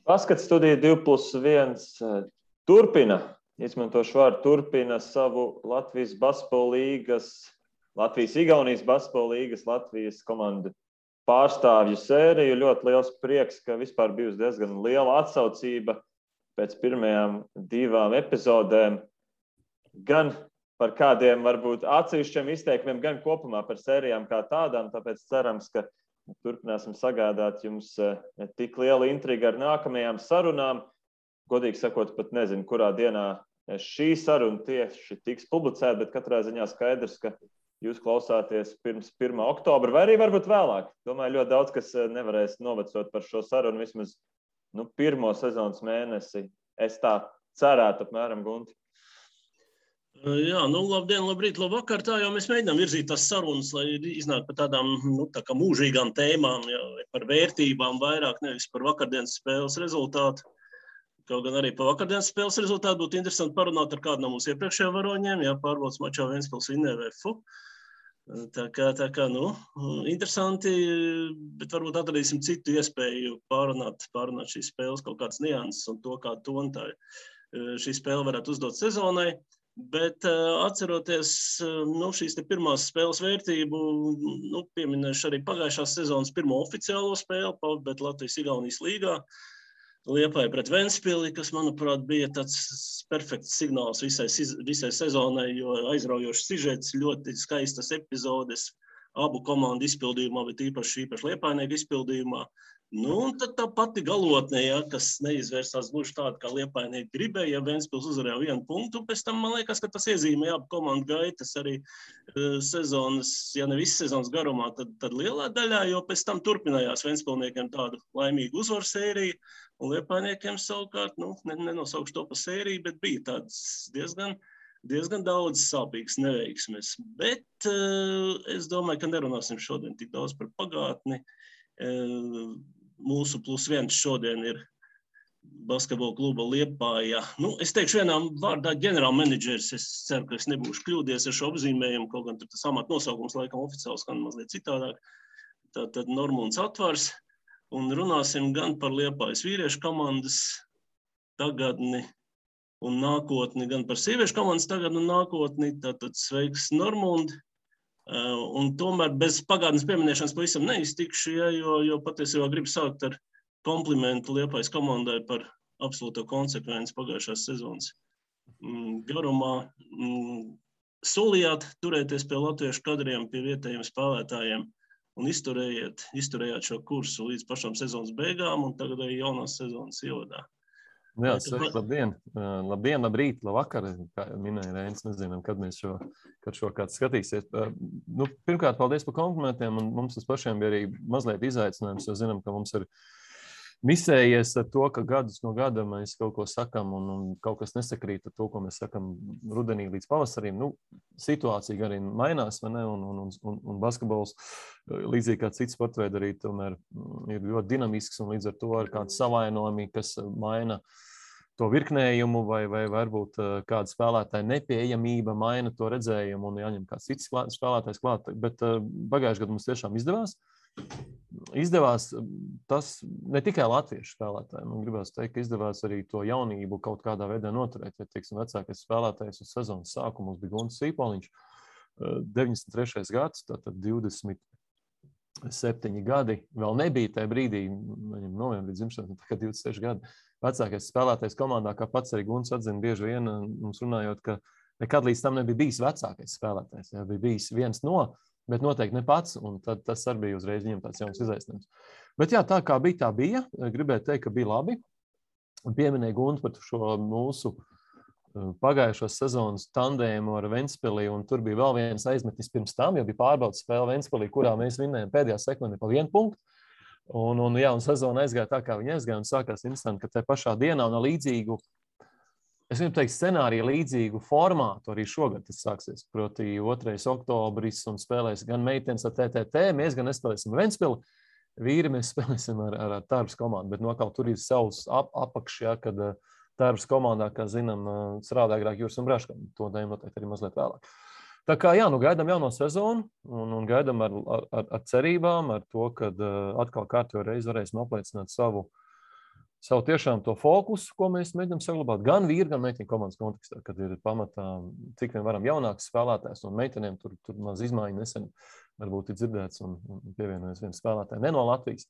Paskats studija 2+1 turpina, izmantošu vārdu turpina savu Latvijas basketbola līgas, Latvijas-Igaunijas basketbola līgas, Latvijas komandu pārstāvju sēriju. Ļoti liels prieks, ka vispār bijusi diezgan liela atsaucība pēc pirmajām 2 epizodēm. Gan par kādiem varbūt atsevišķiem izteikumiem, gan kopumā par sērijām kā tādām, tāpēc cerams, ka turpināsim sagādāt jums tik lielu intrigu ar nākamajām sarunām. Godīgi sakot, pat nezinu, kurā dienā šī saruna tieši tiks publicēta, bet katrā ziņā skaidrs, ka jūs klausāties pirms 1. oktobra, vai arī varbūt vēlāk. Domāju, ļoti daudz, kas nevarēs novecot par šo sarunu vismaz pirmo sezonas mēnesi. Es tā cerētu apmēram, Gunti. Jā, labdien, labrīt, labvakar. Tā jau mēs mēģinām virzīt tās sarunas, lai iznāk par tādām tā kā mūžīgām tēmām, jā, par vērtībām vairāk, nevis par vakardienas spēles rezultātu. Kaut gan arī par vakardienas spēles rezultātu būtu interesanti parunāt ar kādu no mūsu iepriekšējiem varoņiem, jā, pārbaudas mačā Ventspils vinnēja VFU. Tā kā, interesanti, bet varbūt atradīsim citu iespēju pārunāt šīs spēles kaut kādas nianses un to, kā tonu tā šī spēle varētu uzdot sezonai. Bet atceroties šīs te pirmās spēles vērtību, pieminēšu arī pagājušās sezonas pirmo oficiālo spēli, bet Latvijas-Igaunijas līgā. Liepāja pret Ventspili, kas, manuprāt, bija tāds perfekts signāls visai sezonai, jo aizraujošs sižets, ļoti skaistas epizodes abu komandu izpildījumā, bet īpaši Liepājnieku izpildījumā. Un tad tā pati galotne, kas neizvērsās gluži tāda, kā Liepājnieki gribēja, ja Ventspils uzvarēja 1 punktu, pēc tam man liekas, ka tas iezīmēja abu komandu gaitas arī sezonas, ja ne visas sezonas garumā, tad lielā daļā, jo pēc tam turpinājās Ventspilniekiem tādu laimīgu uzvaru sēriju, un Liepājniekiem savukārt, nenosaukšu to pa sēriju, bet bija tāds diezgan daudz sāpīgas neveiksmes. Bet es domāju, ka nerunāsim šodien tik daudz par pagātni. Mūsu +1 šodien ir basketbola kluba Liepāja. Es teikšu vienā vārdā ģenerālmenedžeris. Es ceru, ka es nebūšu kļūdies ar šo apzīmējumu, kaut gan tas amata nosaukums laikam oficiāli skan mazliet citādāk. Tātad Normunds Atvars. Un runāsim gan par Liepājas vīriešu komandas tagadni un nākotni, gan par sieviešu komandas tagadni un nākotni. Tātad sveiks, Normund. Un tomēr bez pagātnes pieminēšanas pavisam neiztikšu, jo patiesībā gribu sākt ar komplimentu Liepājas komandai par absolūto konsekvenci pagājušās sezonas garumā. Solījāt turēties pie latviešu kadriem, pie vietējiem spēlētājiem un izturējāt šo kursu līdz pašām sezonas beigām un tagad arī jaunās sezonas ievadā. Jā, sveiki, labdien. Labdien, labrīt, labvakar, kā minēja Reinis, nezinām, kad šo kāds skatīsies. Pirmkārt, paldies par komplimentiem, un mums tas pašiem bija arī mazliet izaicinājums, jo zinām, ka mums ir misējies ar to, ka gadus no gada mēs kaut ko sakam un kaut kas nesakrīt ar to, ko mēs sakam rudenī līdz pavasarim. Situācija arī mainās, vai ne, un basketbols, līdzīgi kā cits sportveidi arī tomēr ir ļoti dinamisks, un līdz ar to ir kāds savainojumi, kas maina to virknējumu, vai varbūt kāda spēlētāja nepieejamība maina to redzējumu un jāņem kāds cits spēlētājs klāt. Bet pagājušajā gadā mums tiešām izdevās tas ne tikai latviešu spēlētājiem. Gribētu teikt, ka izdevās arī to jaunību kaut kādā veidā noturēt. Ja, teiksim, vecākais spēlētājs uz sezonas sākumu bija Gunts Sīpoliņš, 93. gads, tātad 27 gadi. Vēl nebija tajā brīdī, viņam novembrī dzimšanas, tagad 26 gadi. Vecākais spēlētājs komandā, kā pats arī Gunts atzina bieži vien, mums runājot, ka nekad līdz tam nebija bijis vecākais spēlētājs. Ja, bija bijis viens no, bet noteikti ne pats, un tad tas arī bija uzreiz viņam tāds jauns izaicinājums. Bet jā, tā kā bija, tā bija. Gribētu teikt, ka bija labi. Pieminēja Gunts par šo mūsu pagājušos sezonas tandēmu ar Ventspili, un tur bija vēl viens aizmetis pirms tam, jo bija pārbaudas spēle Ventspilī, kurā mēs vinnējām pēdējā sekundē pa 1 punktu. Un sezona aizgāja tā, kā viņa aizgāja, un sākās interesanti, ka te pašā dienā un līdzīgu, es gribu teikt, scenāriju līdzīgu formātu arī šogad tas sāksies. Proti 2. oktobris un spēlēs gan meitenes ar TTT, mēs gan nespēlēsim Ventspili, vīri mēs spēlēsim ar Tarbas komandu, bet kaut tur ir savs apakšā, kad Tarbas komandā, kā zinām, strādā agrāk Jūras un Braškam. To dēļ noteikti arī mazliet vēlāk. Tā kā jā, gaidām jauno sezonu un gaidām ar cerībām, ar to, kad atkal kārtējo reizi varēsim apliecināt savu savu tiešām to fokusu, ko mēs mēģinām saglabāt gan vīru, gan meiteņu komandas kontekstā, kad ir pamatā, cik vien varam jaunāks spēlētājs, un meitenēm tur maz izmaiņu nesen varbūt ir dzirdēts un pievienojas viens spēlētāji ne no Latvijas,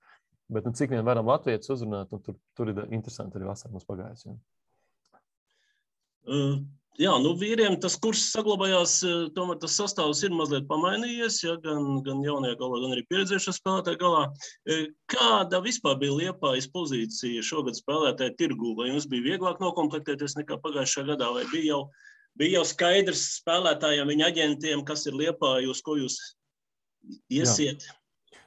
bet cik vien varam latvietis uzrunāt, un tur ir interesanti arī vasarā mums pagājis. Jā, vīriem tas kurs saglabājās, tomēr tas sastāvs ir mazliet pamainījies, ja, gan jaunie galā, gan arī pieredzējušie spēlētāji galā. Kāda vispār bija Liepājas pozīcija šogad spēlētāju tirgū? Vai jums bija vieglāk nokomplektēties nekā pagājušajā gadā, vai bija jau skaidrs spēlētājiem, viņa aģentiem, kas ir Liepāja, uz ko jūs iesiet?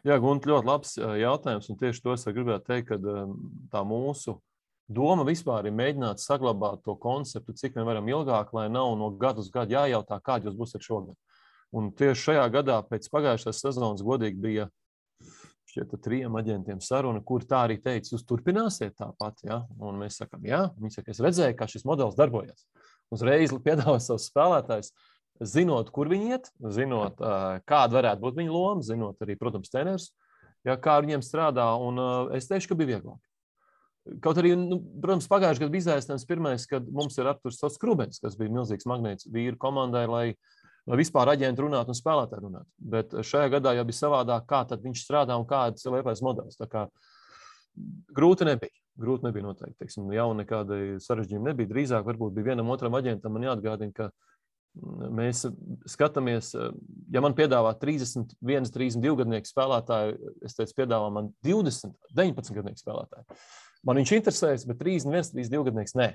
Jā, Gunti, ļoti labs jautājums, un tieši to es gribētu teikt, ka tā mūsu doma vispār ir mēģināt saglabāt to konceptu, cik vien varam ilgāk, lai nav no gadu uz gadu jājautā, kādi jūs būsiet šogad. Un tieši šajā gadā pēc pagājušās sezonas godīgi bija šķiet 3 aģentiem saruna, kur tā arī teica, jūs turpināsiet tāpat, ja? Un mēs sakam, jā, viņi saka, es redzēju, kā šis modelis darbojas. Uzreiz piedāvā savus spēlētājus, zinot, kur viņi iet, zinot, kāda varētu būt viņa loma, zinot arī, protams, treneris, ja, kā viņiem strādā, un es teikšu, ka bija vieglāk. Kaut arī, protams, pagājušajā gadā bija izaicinājums pirmais, kad mums ir apturs Sots Krubens, kas bija milzīgs magnēts vīru komandai, lai vispār aģenti runātu un spēlētāji runātu. Bet šajā gadā jau bija savādāk, kā tad viņš strādā un kāds ir Liepājas modelis. Tā kā grūti nebija noteikti. Teiksim, jau nekāda sarežģījuma nebija. Drīzāk varbūt bija vienam otram aģentam man jāatgādina, ka mēs skatāmies, ja man piedāvā 31, 32 gadnieku spēlētāju, es teicu, piedāvā man 20, 19 gadnieku spēlētāju. Man viņš interesēs, bet 31, 32 gadnieks nē.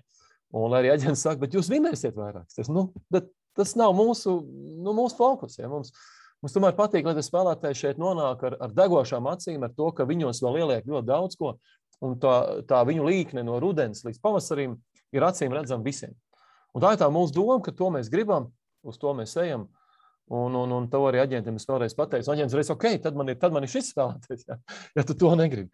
Un lai arī aģents saka, bet jūs vinēsiet vairāk. Tas nav mūsu fokus. Ja? Mums tomēr patīk, lai spēlētāji šeit nonāk ar degošām acīm, ar to, ka viņos vēl ieliek ļoti daudz ko, un tā viņu līkne no rudens līdz pavasarim ir acīm redzama visiem. Un tā ir tā mūsu doma, ka to mēs gribam, uz to mēs ejam, un to arī aģentiem es vēlreiz pateicu. Aģents reiz, ok, tad man ir šis spēlētājs, ja tu to negribi.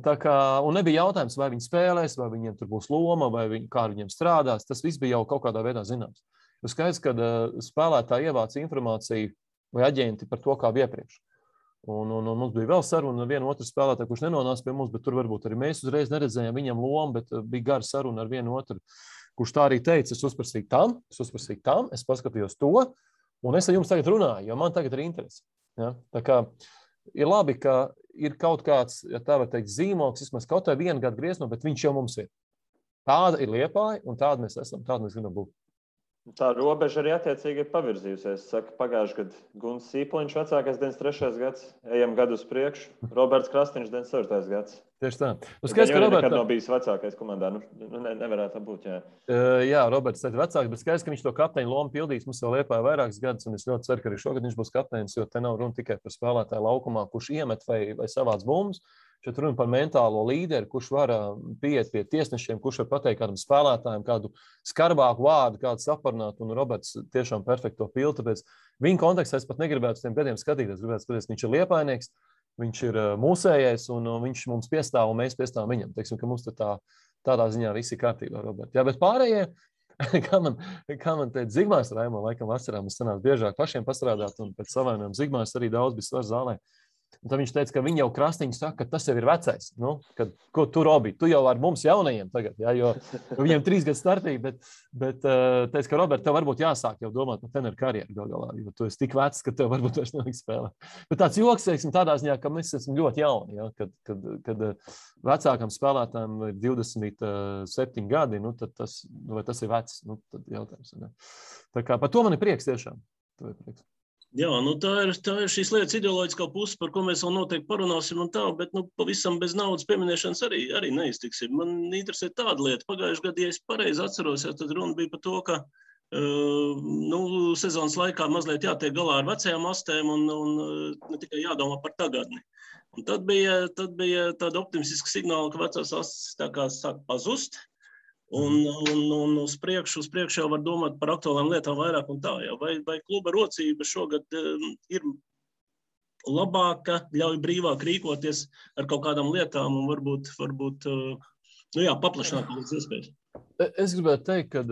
Tā kā, un nebija jautājums, vai viņi spēlēs, vai viņiem tur būs loma, vai kā viņiem strādās. Tas viss bija jau kaut kādā veidā zināms. Jo skaidrs, ka spēlētāji ievāc informāciju vai aģenti par to, kā iepriekš. Un mums bija vēl saruna ar vienu otru spēlētāju, kurš nenonāca pie mums, bet tur varbūt arī mēs uzreiz neredzējām viņam lomu, bet bija gara saruna ar vienu otru, kurš tā arī teica, es uzprasīju tam, es paskatījos to, un es ar jums tagad runāju, jo man tagad ir interesi. Ja? Tā kā ir labi, ka ir kaut kāds, ja tā var teikt, zīmoks, vismaz kaut vai 1 gadu griezno, bet viņš jau mums ir. Tāda ir Liepāja, un tāda mēs esam, tāda mēs gribam būt. Tā robeža arī attiecīgi ir pavirzījusies. Saka, pagājuši gadu Gunts Sīpoliņš vecākais 93. gads, ejam gadu uz priekšu, Roberts Krastiņš 94. gads. Tieši tā. Skaidrs, ka Roberts nekad nav bijis vecākais komandā. Nevarētu būt, jā. Jā, Roberts ir vecāks, bet skaidrs, ka viņš to kapteiņu lomu pildīs. Mums vēl Liepāja vairākus gadus, un es ļoti ceru, ka arī šogad viņš būs kapteinis, jo te nav runa tikai par spēlētāju laukumā, kurš iemet vai savāc bumbas. Šeit runa par mentālo līderi, kurš var pieiet pie tiesnešiem, kurš var pateikt kādam spēlētājam kādu skarbāku vārdu, kādu saparnāt, un Roberts tiešām perfekto pildu, tāpēc viņa kontekstā es pat negribētu uz tiem gadiem skatīties. Gribētu skatīties, viņš ir liepājnieks, viņš ir mūsējais, un viņš mums piestāv, un mēs piestāvam viņam. Teiksim, ka mums tādā ziņā visi kārtībā, Robert. Jā, bet pārējie, kā man teica Zigmārs Raimo, laikam vasarā mums sanās biežāk pašiem pastrādāt, un pēc savainojuma Zigmārs arī daudz bija svars zālē. Un tad viņš teica, ka viņi jau Krastiņš saka, ka tas jau ir vecais. Ko tu, Robi, tu jau ar mums jaunajiem tagad, ja, jo viņiem 3 gadu starpība, bet teica, ka Robert, tev varbūt jāsāk jau domāt par treneru karjeru galā, jo tu esi tik vecs, ka tev varbūt vairs nevajag spēlēt. Bet tāds joks, teiksim, tādā ziņā, ka mēs esam ļoti jauni, ja, kad vecākam spēlētājiem ir 27 gadi, tad tas ir vecs, tad jautājums. Ne? Tā kā par to man ir prieks tiešām. Jā, tā ir šīs lietas ideoloģiskā puse, par ko mēs vēl noteikti parunāsim un tā, bet pavisam bez naudas pieminēšanas arī neiztiksim. Man interesē tāda lieta. Pagājušajā gadā, ja es pareizi atceros, tad runa bija par to, ka sezonas laikā mazliet jātiek galā ar vecajām astēm un ne tikai jādomā par tagadni. Un tad bija tāda optimistiska signāla, ka vecās astes tā kā sāk pazust. Un uz priekšu jau var domāt par aktuālām lietām vairāk un tā. Jā. Vai kluba rocība šogad ir labāka, ļauj brīvāk rīkoties ar kaut kādām lietām un varbūt Nu jā, paplašināt pēc iespējas. Es gribētu teikt, ka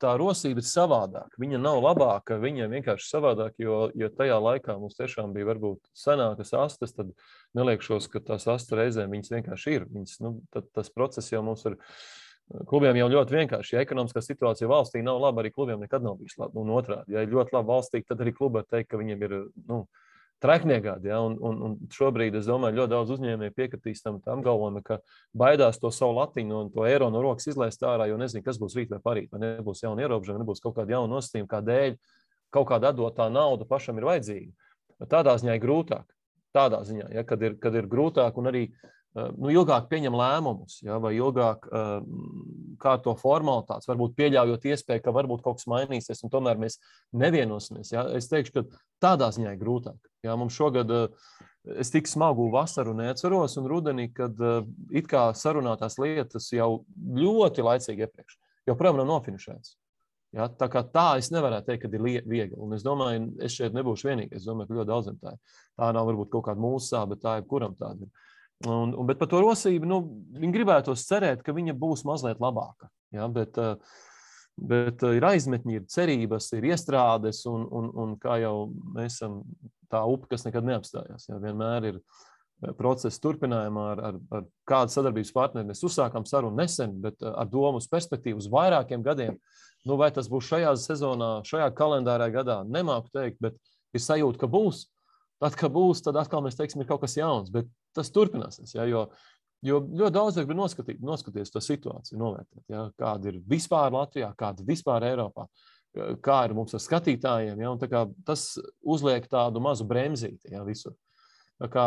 tā rosība ir savādāka. Viņa nav labāka, viņa vienkārši savādāka, jo tajā laikā mums tiešām bija varbūt senākas astes, tad neliekšos, ka tās astes reizēm viņas vienkārši ir. Viņas, tas process jau mums ir, klubiem jau ļoti vienkārši. Ja ekonomiskā situācija valstī nav laba, arī klubiem nekad nav bijis laba. Un otrādi, ja ir ļoti laba valstī, tad arī klubi var teikt, ka viņiem ir, trekniegādi, ja? Un šobrīd, es domāju, ļoti daudz uzņēmēji piekritīs tam galvojumi, ka baidās to savu latiņu un to eiro no rokas izlaist ārā, jo nezinu, kas būs rīt vai parīt, vai nebūs jauna ierobežojuma, nebūs kaut kāda jauna nosacījuma, kādēļ kaut kāda atdotā nauda pašam ir vajadzīga. Tādā ziņā ir grūtāk. Tādā ziņā, ja, kad ir grūtāk un arī ilgāk pieņem lēmumus, ja, vai ilgāk kā to formalitātes, varbūt pieļaujot iespēju, ka varbūt kaut kas mainīsies, un tomēr mēs nevienosimies. Ja. Es teikšu, ka tādā ziņā ir grūtāk. Ja. Mums šogad es tik smagu vasaru neatceros, un rudenī, kad it kā sarunātās lietas jau ļoti laicīgi iepriekš, joprojām nav nofinišēts. Ja. Tā kā tā es nevarētu teikt, ka ir viegli. Un es domāju, es šeit nebūšu vienīgais. Es domāju, ka ļoti daudziem tā ir. Tā nav varbūt kaut kāda mūsu sāba, bet tā jebkuram tāda ir. Bet par to rosību, viņi gribētos cerēt, ka viņa būs mazliet labāka. Ja, bet ir aizmetņi, ir cerības, ir iestrādes, un kā jau mēs esam tā upe, kas nekad neapstājās. Ja, vienmēr ir procesa turpinājumā ar kādu sadarbības partneri. Mēs uzsākām sarunu nesen, bet ar domu uz perspektīvu uz vairākiem gadiem. Vai tas būs šajā sezonā, šajā kalendārā gadā, nemāku teikt, bet ir sajūta, ka būs. Tad, kad būs, tad atkal mēs teiksim, ir kaut kas jauns, bet tas turpināsies, ja, jo ļoti daudz grib noskatīties to situāciju, novērtēt, ja, kāda ir vispār Latvijā, kāda ir vispār Eiropā, kā ir mums ar skatītājiem, ja, un tā kā tas uzliek tādu mazu bremzīti, ja, visur. Tā kā,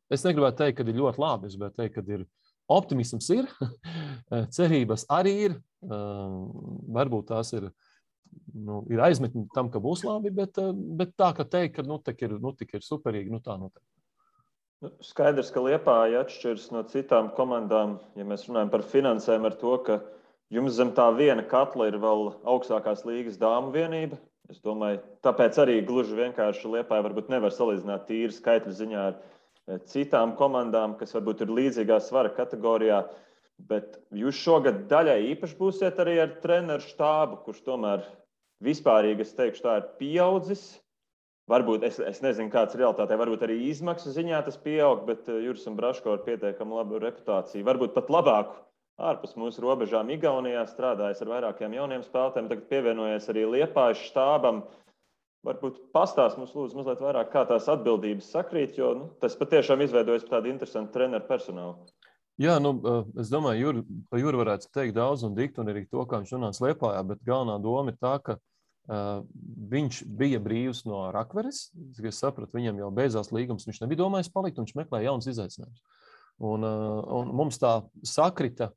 es negribētu teikt, ka ir ļoti labi, es gribētu teikt, ka ir optimisms ir, cerības arī ir, varbūt tās ir aizmetni tam, ka būs labi, bet tā, ka teikt, ka tik ir superīgi, tā noteikti. Skaidrs, ka Liepāja atšķiras no citām komandām, ja mēs runājam par finansēm, ar to, ka jums zem tā viena katla ir vēl augstākās līgas dāmu vienība. Es domāju, tāpēc arī gluži vienkārši Liepāja varbūt nevar salīdzināt tīri skaitļu ziņā ar citām komandām, kas varbūt ir līdzīgā svara kategorijā. Bet jūs šogad daļai īpaši būsiet arī ar treneru štābu, kurš tomēr vispārīgi, es teikšu, tā ir pieaudzis. Varbūt, es nezinu, kāds ir realitātē, varbūt arī izmaksu ziņā tas pieaug, bet Juris un Braško ar pietiekami labu reputāciju. Varbūt pat labāku ārpus mūsu robežām Igaunijā strādājis ar vairākiem jauniem spēlētājiem, tagad pievienojies arī Liepājas štābam. Varbūt pastāst mums lūdzu mazliet vairāk, kā tās atbildības sakrīt, jo tas patiešām izveidojas par tādu interesantu treneru personālu. Jā, es domāju, par Juru varētu teikt daudz un dikt, un arī to, kā viņš nonāca Liepājā, bet galvenā doma ir tā, ka viņš bija brīvs no Rakveres. Es sapratu, viņam jau beidzās līgums, viņš nebija domājis palikt, un viņš meklēja jaunas izaicinājumus. Un mums tā sakrita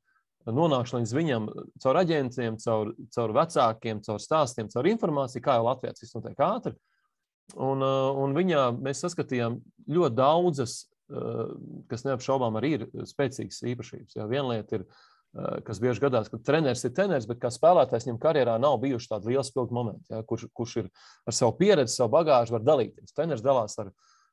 nonākšana līdz viņam caur aģentiem, caur vecākiem, caur stāstiem, caur informāciju, kā jau Latvijā tas notiek ātri. Un viņā mēs saskatījām ļoti daudzas, kas neapšaubām arī ir spēcīgas īpašības. Ja, viena lieta ir, kas bieži gadās, ka treneris ir treneris, bet kā spēlētājs viņam karjerā nav bijuši tādi lieli spilgti momenti, ja, kurš ir ar savu pieredzi, savu bagāžu var dalīties. Treneris dalās ar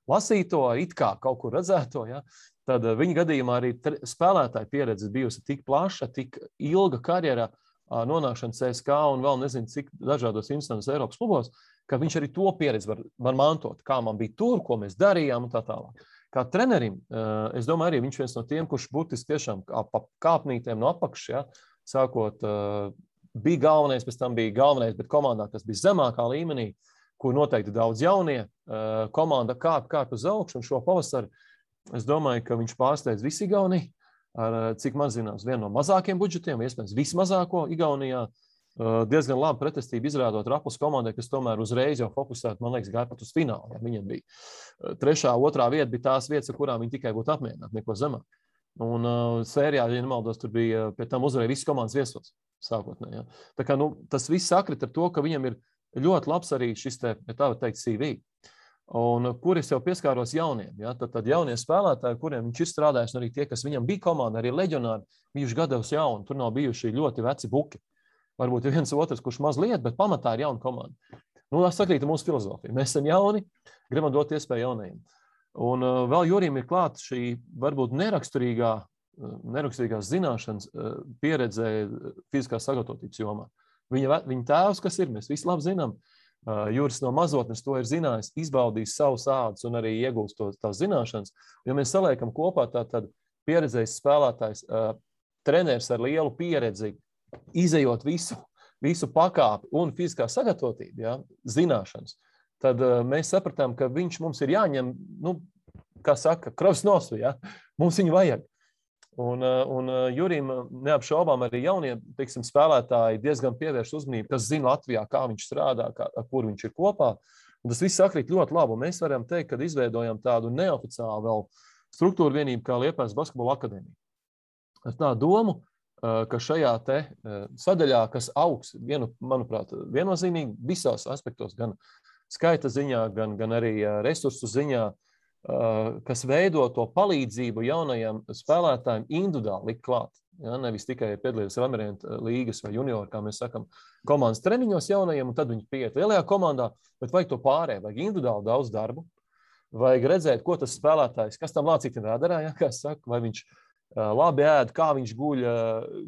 lasīto, it kā kaut kur redzēto. Ja. Tad viņa gadījumā arī spēlētāja pieredze bijusi tik plaša, tik ilga karjerā, nonākšana CSK un vēl nezinu, cik dažādos instances Eiropas klubos, ka viņš arī to pieredzi var mantot, kā man bija tur, ko mēs darījām un tā tālāk. Kā trenerim, es domāju, arī viņš viens no tiem, kurš būtiski tiešām pa kāpnītēm no apakšas, ja, sākot, bija galvenais, pēc tam bija galvenais, bet komandā, kas bija zemākā līmenī, kur noteikti daudz jaunie, komanda kāp uz augšu, un šo pavasaru, es domāju, ka viņš pārsteidz visu Igauniju, ar, cik man zināms, vienu no mazākiem budžetiem, iespējams vismazāko Igaunijā, diezgan labi pretestību izrādot Raplas komandai, kas tomēr uzreiz jau fokusēt, man liekas, gāja pat uz finālu. Ja. Viņam bija 3., 2. vieta, bija tās vietas, ar kurām viņi tikai būtu apmierināti, neko zemāk. Un sērijā, ja nemaldos, tur bija pie tam uzvarēja visas komandas viesos sākotnēji. Ja. Tā kā, tas viss sakrit ar to, ka viņam ir ļoti labs arī šis te, ja tā var teikt, CV. Un kur es jau pieskāros jauniem. Ja. Tad jaunie spēlētāji, kuriem viņš ir strādājis, un arī tie, kas viņam bija komanda, arī leģionāri, bijuši gados jauni, tur nav bijuši ļoti veci buki. Varbūt ir viens otrs, kurš mazliet, bet pamatā ir jauna komanda. Tas sakrīt ar mūsu filozofiju. Mēs esam jauni, gribam dot iespēju jaunajiem. Un vēl Jurim ir klāta šī varbūt neraksturīgā neraksturīgās zināšanas pieredzē fiziskās sagatavotības jomā. Viņa tēvs, kas ir, mēs visi labi zinām, Juris no mazotnes to ir zinājis, izbaudījis savus ādus un arī iegūst tās zināšanas. Ja mēs saliekam kopā, tad pieredzējis spēlētājs, treneris ar lielu pieredzi, izejot visu pakāpi un fiziskā sagatavotība, ja, zināšanas, tad mēs sapratām, ka viņš mums ir jāņem, kā saka, kravas nosvi, ja, mums viņu vajag. Un Jurim neapšaubām arī jaunie, teiksim, spēlētāji diezgan pievērš uzmanību, kas zina Latvijā, kā viņš strādā, ar kur viņš ir kopā. Un tas viss sakrīt ļoti labi. Un mēs varam teikt, ka izveidojam tādu neoficiālu vēl struktūru vienību kā Liepājas basketbola akadēmija. Ar tā domu, ka šajā te sadaļā, kas augs, manuprāt, viennozīmīgi visos aspektos, gan skaita ziņā, gan arī resursu ziņā, kas veido to palīdzību jaunajiem spēlētājiem individuāli likt klāt. Ja, nevis tikai piedalīties Amerientu līgas vai junioru, kā mēs sakam, komandas treniņos jaunajiem, un tad viņi pieiet lielajā komandā, bet vajag to pārēju, vajag individuāli daudz darbu, vajag redzēt, ko tas spēlētājs, kas tam lācītim radarā, ja, kā saka, vai viņš labi ēd, kā viņš guļ,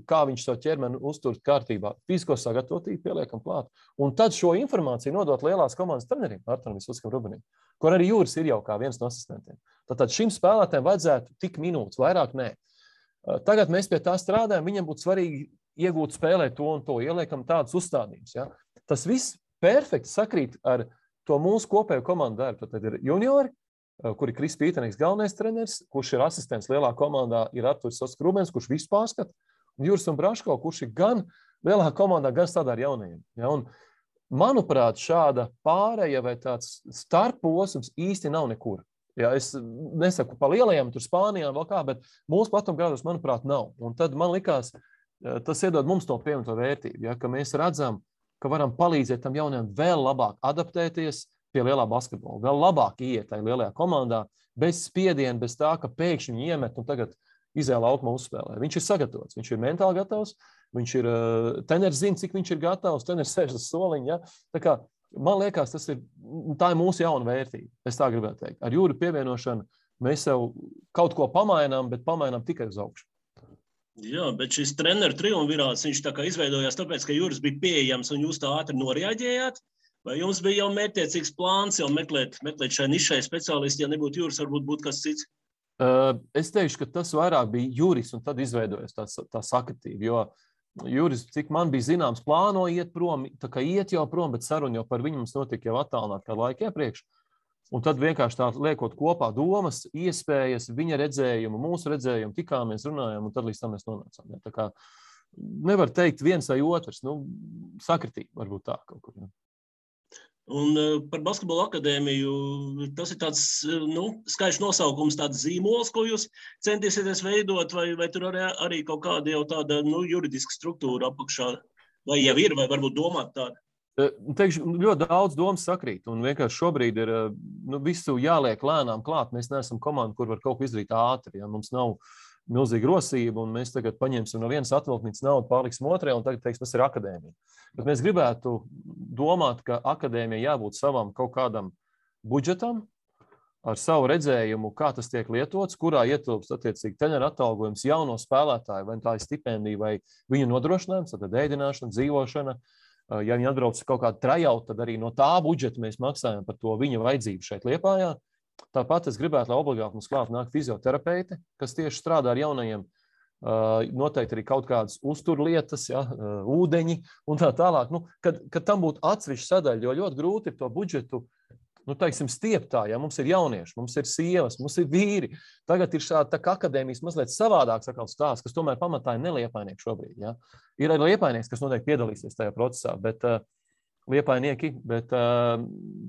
kā viņš savu ķermeni uztur kārtībā, fizisko sagatavotību pieliekam klāt. Un tad šo informāciju nodot lielās komandas trenerim, Arturam Visvuckam Rubenim, kur arī Juris ir jau kā viens no asistentiem. Tātad šim spēlētājiem vajadzētu tik minūtes, vairāk nē. Tagad mēs pie tā strādājam, viņam būtu svarīgi iegūt spēlēt to un to, ieliekam tādas uzstādījumus. Ja? Tas viss perfekti sakrīt ar to mūsu kopējo komandu darbu. Tad ir juniori, kur ir Kris Pītenīgs galvenais treneris, kurš ir asistents lielā komandā, ir Arturs Visvucks Rubens, kurš visu pārskata, un Juris un Braško, kurš ir gan lielā komandā, gan strādā ar jaunajiem. Ja? Un, manuprāt, šāda pāreja vai tāds starposms īsti nav nekur. Ja, es nesaku pa lielajām, tur Spānijā vēl kā, bet mūsu platumgrādos, manuprāt, nav. Un tad man likās, tas iedod mums to pievienoto vērtību, ja, ka mēs redzam, ka varam palīdzēt tam jaunajam vēl labāk adaptēties pie lielā basketbola, vēl labāk iet tajā lielajā komandā, bez spiediena, bez tā, ka pēkšņi viņi iemet un tagad izēja laukumā uzspēlē. Viņš ir sagatavots, viņš ir mentāli gatavs, viņš ir, treneris zina, cik viņš ir gatavs, treneris sēž uz soliņa. Ja? Tā kā, man liekas, tā ir mūsu jauna vērtība, es tā gribētu teikt. Ar Jūri pievienošanu mēs sev kaut ko pamainām, bet pamainām tikai uz augšu. Jā, bet šis treneru triumvirāts, viņš tā kā izveidojās tāpēc, ka Juris bija pieejams un jūs tā ātri noreaģējāt? Vai jums bija jau mērķtiecīgs plāns jau meklēt šai nišai speciālisti, ja nebūtu Juris, varbūt būtu kas cits? Es teikšu, ka tas vairāk bija Juris un tad izveidojas tā sakritība, jo Juris, cik man bija zināms, plāno iet prom, tā kā iet jau prom, bet saruna jau par viņu mums notika jau attālināt kādu laiku iepriekš. Un tad vienkārši tā liekot kopā domas, iespējas, viņa redzējumu, mūsu redzējumu, tikāmies, runājām, un tad līdz tam mēs nonācām. Ja? Tā kā nevar teikt viens vai otrs, sakritība varbūt tā kaut kur. Ja? Un par basketbola akadēmiju, tas ir tāds, skaidrs nosaukums, tāds zīmols, ko jūs centīsieties veidot, vai tur arī kaut kāda jau tāda, juridiska struktūra apakšā, vai jau ir, vai varbūt domāt tāda? Teikšu, ļoti daudz domas sakrīt, un vienkārši šobrīd ir visu jāliek lēnām klāt. Mēs neesam komanda, kur var kaut ko izdarīt ātri, ja mums nav milzīga rosība, un mēs tagad paņemsim no vienas atvilknīcas naudu, pārliksim otrajā, un tagad teiksim, tas ir akadēmija. Bet mēs gribētu domāt, ka akadēmija jābūt savam kaut kādam budžetam, ar savu redzējumu, kā tas tiek lietots, kurā ietilpst attiecīgi treneru atalgojums, jauno spēlētāju, vai tā ir stipendija, vai viņu nodrošinājums, tad ēdināšana, dzīvošana. Ja viņi atbrauc kaut kādu trajautu, tad arī no tā budžeta mēs maksājam par to viņa vajadzību šeit Liepājā. Tāpat es gribētu, lai obligāti mums klāt nāk fizioterapeiti, kas tieši strādā ar jaunajiem, noteikti arī kaut kādas uzturlietas, ja, ūdeņi un tā tālāk. Kad tam būtu atsevišķa sadaļa, jo ļoti grūti ir to budžetu, teiksim, stieptā, ja mums ir jaunieši, mums ir sievas, mums ir vīri. Tagad ir šāda tā kā akadēmijas mazliet savādāks stāsts, kas tomēr pamatā ir neliepājnieki šobrīd. Ja. Ir arī liepainieks, kas noteikti piedalīsies tajā procesā, bet liepainieki, bet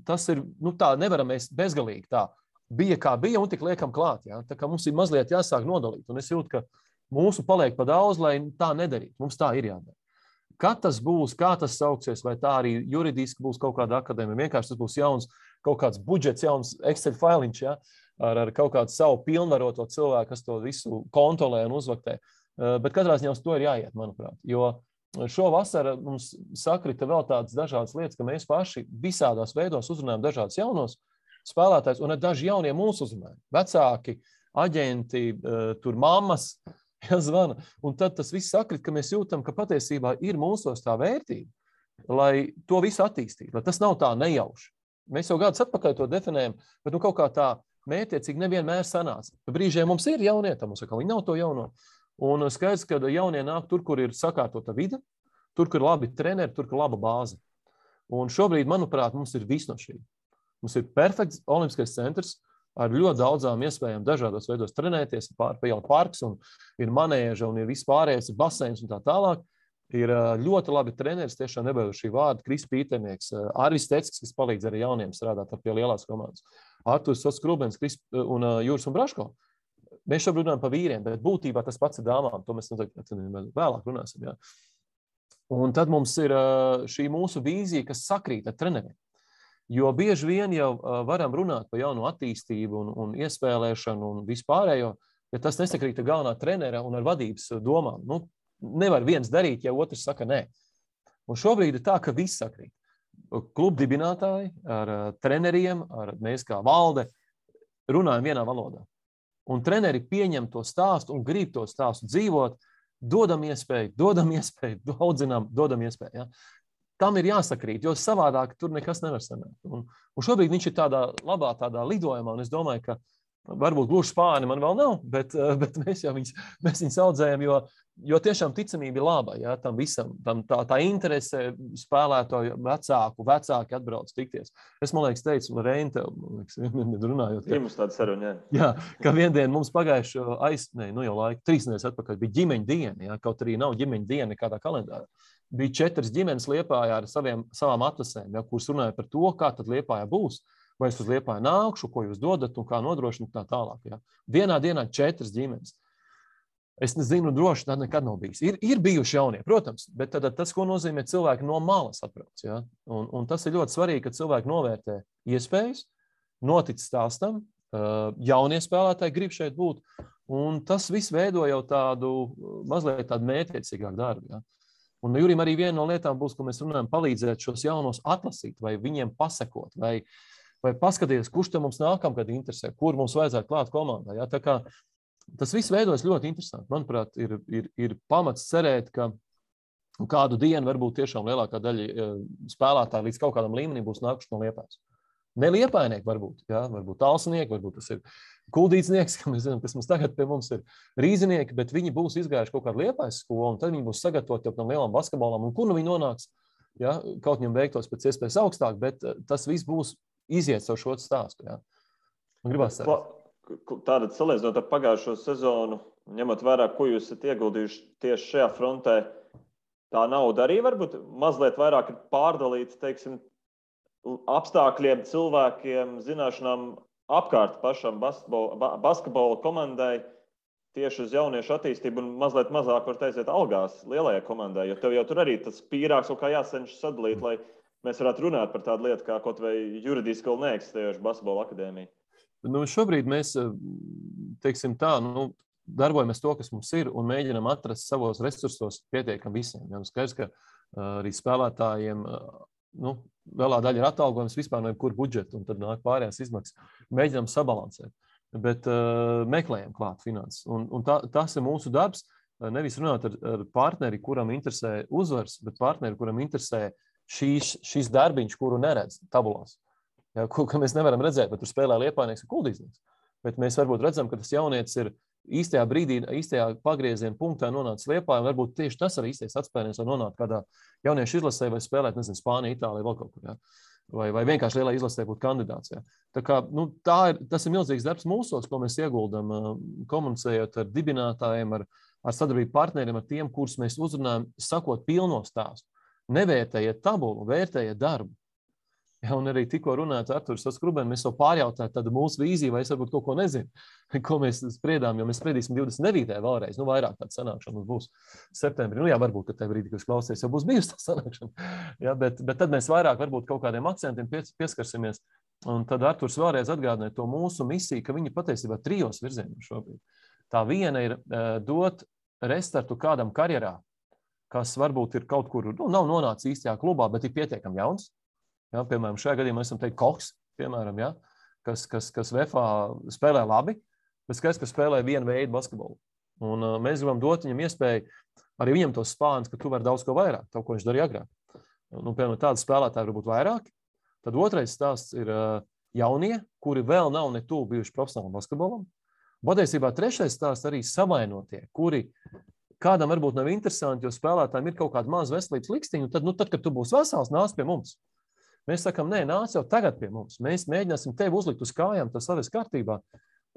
tas ir, tā nevaram mēs bezgalīgi tā. Bija kā bija un tik liekam klāt. Ja. Tā kā mums ir mazliet jāsāk nodalīt. Un es jūtu, ka mūsu paliek pa daudz, lai tā nedarītu. Mums tā ir jādara. Kad tas būs, kā tas sauksies, vai tā arī juridiski būs kaut kāda akadēmija, vienkārši tas būs jauns, kaut kāds budžets, jauns Excel failiņš, ja, ar kaut kādu savu pilnvaroto cilvēku, kas to visu kontrolē un uzvaktē. Bet katrā ziņā uz to ir jāiet, manuprāt. Jo šo vasaru mums sakrita vēl tādas dažādas lietas, ka mēs paši visādās veidos uzrunājam dažādus jaunos spēlētājus, un daži jaunie mūsu uzrunājumi. Vecāki, aģenti, tur mammas, Ja, zvana. Un tad tas viss sakrit, ka mēs jūtam, ka patiesībā ir mūsos tā vērtība, lai to visu attīstītu, lai tas nav tā nejauši. Mēs jau gadus atpakaļ to definējam, bet kaut kā tā mērķiecīgi nevienmēr sanāca. Brīžiem mums ir jaunieti, mums viņi nav to jauno. Un skaidrs, ka jaunie nāk tur, kur ir sakārtota vide, tur, kur ir labi treneri, tur, kur ir laba bāze. Un šobrīd, manuprāt, mums ir viss no šī. Mums ir perfekts olimpiskais centrs, ar ļoti daudzām iespējām dažādos veidos trenēties, jau parks un ir manēža un ir viss pārējais, ir baseins un tā tālāk. Ir ļoti labi treneris, tiešām nebaidu šī vārda, Kris Pīternieks, Arvis Teckis, kas palīdz arī jauniem strādāt pie lielās komandas, Arturs Skrubens un Jūras un Braško. Mēs šobrīd runājam par vīriem, bet būtībā tas pats ir dāmām, to mēs vēlāk runāsim. Jā. Un tad mums ir šī mūsu vīzija, kas sakrīt ar treneriem. Jo bieži vien jau varam runāt par jaunu attīstību un iespēlēšanu un vispārējo, ja tas nesakrīt ar galvenā trenera un ar vadības domām. Nu, nevar viens darīt, ja otrs saka nē. Un šobrīd ir tā, ka viss sakrīt. Klubu dibinātāji ar treneriem, ar mēs kā valde runājam vienā valodā. Un treneri pieņem to stāstu un grib to stāstu dzīvot, dodam iespēju, audzinām, dodam iespēju. Ja? Tam ir jāsakrīt, jo savādāk tur nekas nevar sanākt. Un šobrīd viņš ir tādā labā lidojumā, un es domāju, ka varbūt gluži spāni man vēl nav, bet mēs viņus audzējam, jo tiešām ticamība ir laba, ja, tam visam, tā interese spēlētāju vecāki atbrauc tikties. Es, man liekas, teicu, Reini, tev, runājot. Ir mums tāda saruna, jā, ka viendien mums pagājuši jau laika, 3 nedēļas atpakaļ bija ģimeņa diena, ja, kaut arī nav ģimeņa diena nekādā kalendārā. Bija 4 ģimenes Liepājā ar savām atlasēm, ja, kuras runāja par to, kā tad Liepājā būs, vai es uz Liepāju nākšu, ko jūs dodat un kā nodrošināt tā tālāk. Ja. Vienā dienā 4 ģimenes. Es nezinu, droši tā nekad nav bijis. Ir bijuši jaunie, protams, bet tad tas, ko nozīmē cilvēki no malas atbrauc. Ja. Un tas ir ļoti svarīgi, ka cilvēki novērtē iespējas, notic stāstam, jaunie spēlētāji grib šeit būt, un tas viss veido jau mazliet tādu mērķiecīgāku darbu. Ja. Un Jurim arī viena no lietām būs, ko mēs runājam, palīdzēt šos jaunos atlasīt, vai viņiem pasakot, vai paskatīties, kurš te mums nākamgad interesē, kur mums vajadzētu klāt komandā. Ja? Tā kā tas viss veidojas ļoti interesanti. Manuprāt, ir pamats cerēt, ka kādu dienu varbūt tiešām lielākā daļa spēlētāji līdz kaut kādam līmenim būs nākuši no Liepājas. Ne Liepājnieki varbūt, ja? Varbūt Talsinieki, varbūt tas ir Kuldīcinieks, ka mēs zinām, kas mums tagad pie mums ir Rīzinieki, bet viņi būs izgājuši kaut kādu Liepājas skolu, un tad viņi būs sagatavoti jau tam lielam basketbolam, un kur nu viņi nonāks, ja? Kaut viņam veiktos pēc iespējas augstāk, bet tas viss būs iziet savu šo stāstu. Ja? Un gribās Tātad salīdzinot ar pagājušo sezonu, ņemot vērā, ko jūs esat ieguldījuši tieši šajā frontē, tā nauda arī varbūt mazliet vairāk ir pārdalīta, teiksim, apstākļiem, cilvēkiem, zināšanām apkārt pašam basketbola komandai tieši uz jauniešu attīstību un mazliet mazāk var aiziet algās lielajai komandai, jo tev jau tur arī tas pīrāks kaut kā jācenšas sadalīt, lai mēs varētu runāt par tādu lietu kā kaut vai juridiski vēl neeksistējošu basketbola akadēmiju. Nu, šobrīd mēs, teiksim tā, darbojamies to, kas mums ir, un mēģinam atrast savos resursos pietiekam visiem. Ja, skaidrs, ka arī spēlētājiem, lielā daļa ir atalgojums vispār no jebkura budžeta, un tad nāk pārējās izmaksas. Mēģinām sabalansēt, bet meklējam klāt finanses. Un tas ir mūsu darbs, nevis runāt ar partneri, kuram interesē uzvars, bet partneri, kuram interesē šīs darbiņš, kuru neredz tabulās. Ja, ko mēs nevaram redzēt, bet tur spēlē Liepājnieks un Kuldīznieks. Bet mēs varbūt redzam, ka tas jaunietis ir īstajā brīdī, īstajā pagrieziena punktā nonācis Liepājā, un varbūt tieši tas arī īstais atspēriens, lai nonākt kādā jauniešu izlasē vai spēlēt, nezinu, Spānija, Itālija, vēl kaut kur, ja? vai vienkārši lielā izlasē būt kandidāts. Ja? Tā kā, tas ir milzīgs darbs mūsos, ko mēs ieguldam, komunicējot ar dibinātājiem, ar sadarbību partneriem, ar tiem, kurus mēs uzrunājam, sakot pilno stāstu. Nevērtējiet tabulu, vērtējiet darbu. Ja, un arī tikko runāt ar Arturu Skrubenu, mēs jau pārjautājām tādu mūsu vīziju, vai es varbūt kaut ko nezinu, ko mēs spriedām, jo mēs spriedīsim 29. vēlreiz, vairāk tāda sanākšana mums būs septembrī. Jā, varbūt, ka tajā brīdī, kad jūs klausies, jau būs bijusi tā sanākšana. Ja, bet tad mēs vairāk varbūt kaut kādiem akcentiem pieskarsimies, un tad Arturs vēlreiz atgādināja to mūsu misiju, ka viņi patiesībā 3 virzienos šobrīd. Tā viena ir dot restartu kādam karjerā, kas varbūt ir kaut kur, nav nonācis īstajā klubā, bet ir pietiekami jauns. Ja, piemēram, šajā gadījumā esam teikt Koks, piemēram, ja, kas VFA spēlē labi, bet skaidrs, ka spēlē vienu veidu basketbolu. Un mēs gribam dot viņam iespēju, arī viņam tos spāns, ka tu vari daudz ko vairāk, to, ko viņš darīja agrāk. Nu, piemēram, tādi spēlētāji varbūt vairāki. Tad otrais stāsts ir jaunie, kuri vēl nav ne tuvu bijuši profesionālam basketbolam. Patiesībā trešais stāsts arī savainotie, kuri kādam varbūt nav interesanti, jo spēlētājiem ir kaut kāda maza veselības likstiņa, tad, kad tu būsi vesels, nāc pie mums. Mēs sakām, nē, nāc jau tagad pie mums. Mēs mēģināsim tevi uzlikt uz kājām, tas savas kārtībā,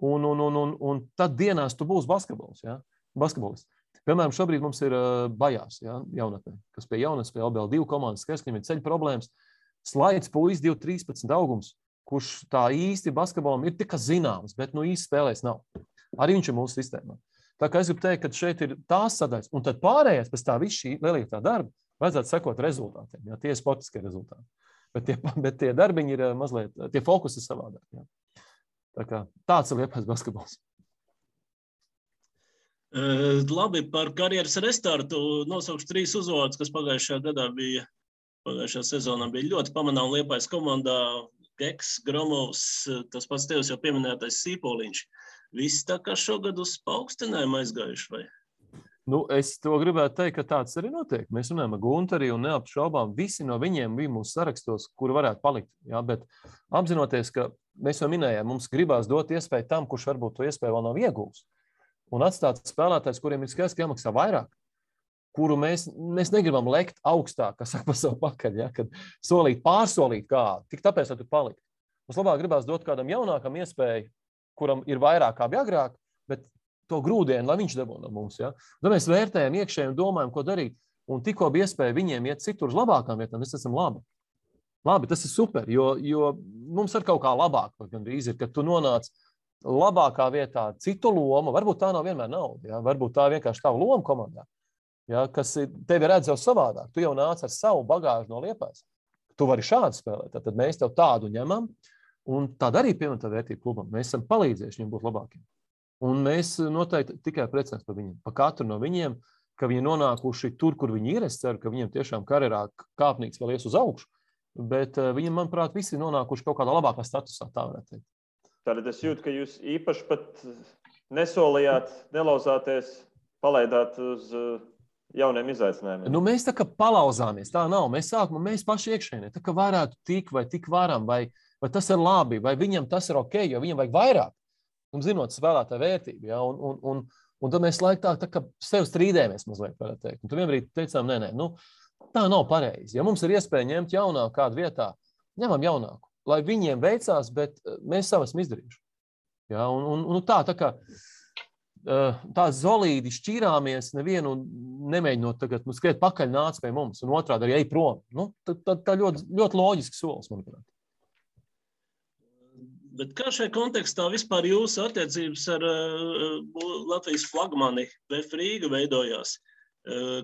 un tad dienās tu būsi basketbolists. Ja? Basketbolists. Piemēram, šobrīd mums ir Bajās, ja? Jaunatnē, kas pie jaunatnes, pie LBL2 komandas, kas viņam ir ceļu problēmas. Slaids puisis 2-13 augums, kurš tā īsti basketbolam ir tikai zināms, bet īsti spēlēs nav. Arī viņš ir mūsu sistēmā. Tā kā es gribu teikt, ka šeit ir tās sadaļas, un tad pārējais pēc tā visu šī lielītā darba vajadzētu sekot rezultātiem. Ja? Tie ir sportiskie rezultāti. Bet tie darbiņi ir mazliet, tie fokusi ir savādāk. Ja? Tā kā tāds ir Liepājas basketbols. Labi, par karjeras restartu nosaukšu 3 uzvārdus, kas pagājušajā sezonā bija ļoti pamanām Liepājas komandā. Geks, Gromovs, tas pats tevis jau pieminētais Sīpoliņš. Visi tā kā šogad uz paaugstinājumu aizgājuši, vai? Es to gribētu teikt, ka tāds arī notiek. Mēs runājam ar Guntari un neapšaubām visi no viņiem bija mūsu sarakstos, kuri varētu palikt. Ja? Bet apzinoties, ka mēs jau minējām, mums gribās dot iespēju tam, kurš varbūt to iespēju vēl nav iegūs. Un atstāt spēlētājs, kuriem ir skaidrs, ka jāmaksā vairāk, kuru mēs negribam lekt augstāk, kas saka pa savu pakaļ, ja? Kad pārsolīt kādu, tik tāpēc, lai tu palikt. Mums labāk gribās dot kādam jaunākam iespēju, kuram ir vairāk kā bija agrāk, bet to grūdienu, lai viņš dabū no mums. Ja? Tad mēs vērtējam iekšēji un domājam, ko darīt. Un tikko bija iespēja viņiem iet citur uz labākām vietām, mēs esam labi. Labi, tas ir super, jo mums ir kaut kā labāk, gandrīz ir, kad tu nonāc labākā vietā citu lomu, varbūt tā nav vienmēr nauda, ja? Varbūt tā vienkārši tava loma komandā, ja? Kas tevi redz jau savādāk. Tu jau nāc ar savu bagāžu no Liepājas. Tu vari šādi spēlēt, tad mēs tev tādu ņemam, un tāda arī pievienotā vērtība klubam. Mēs esam palīdzējuši viņiem būt labākiem. Un mēs noteikti tikai priecājamies par viņiem, par katru no viņiem, ka viņi nonākuši tur, kur viņi ir. Es ceru, ka viņiem tiešām karjerā kāpnīgs vēl ies uz augšu, bet viņiem, manuprāt, visi nonākuši kaut kādā labākā statusā, tā varētu teikt. Tātad es jūtu, ka jūs īpaši pat nesolījāt, nelauzāties, palaidāt uz jauniem izaicinājumiem. Mēs tā kā palauzāmies, tā nav. Mēs paši iekšēnē, tā kā varētu tik varam, vai tas ir labi, vai viņam tas ir ok, jo viņam vajag vairāk. Un zinot spēlētāju vērtību, ja? Un tad mēs laikā tā kā sev strīdējamies mazliet, varētu teikt. Un tad vienbrīd teicām, nē, tā nav pareizi. Ja mums ir iespēja ņemt jaunāku kādu vietā, ņemam jaunāku, lai viņiem veicās, bet mēs savu esam izdarījuši. Ja? Un tā kā tā zolīdi šķīrāmies, nevienu nemēģinot tagad skriet pakaļ nāc pie mums, un otrādi arī ej prom. Tā ļoti, ļoti loģiski solis, manuprāt. Bet kā šajā kontekstā vispār jūsu attiecības ar Latvijas flagmani VF Rīga veidojās?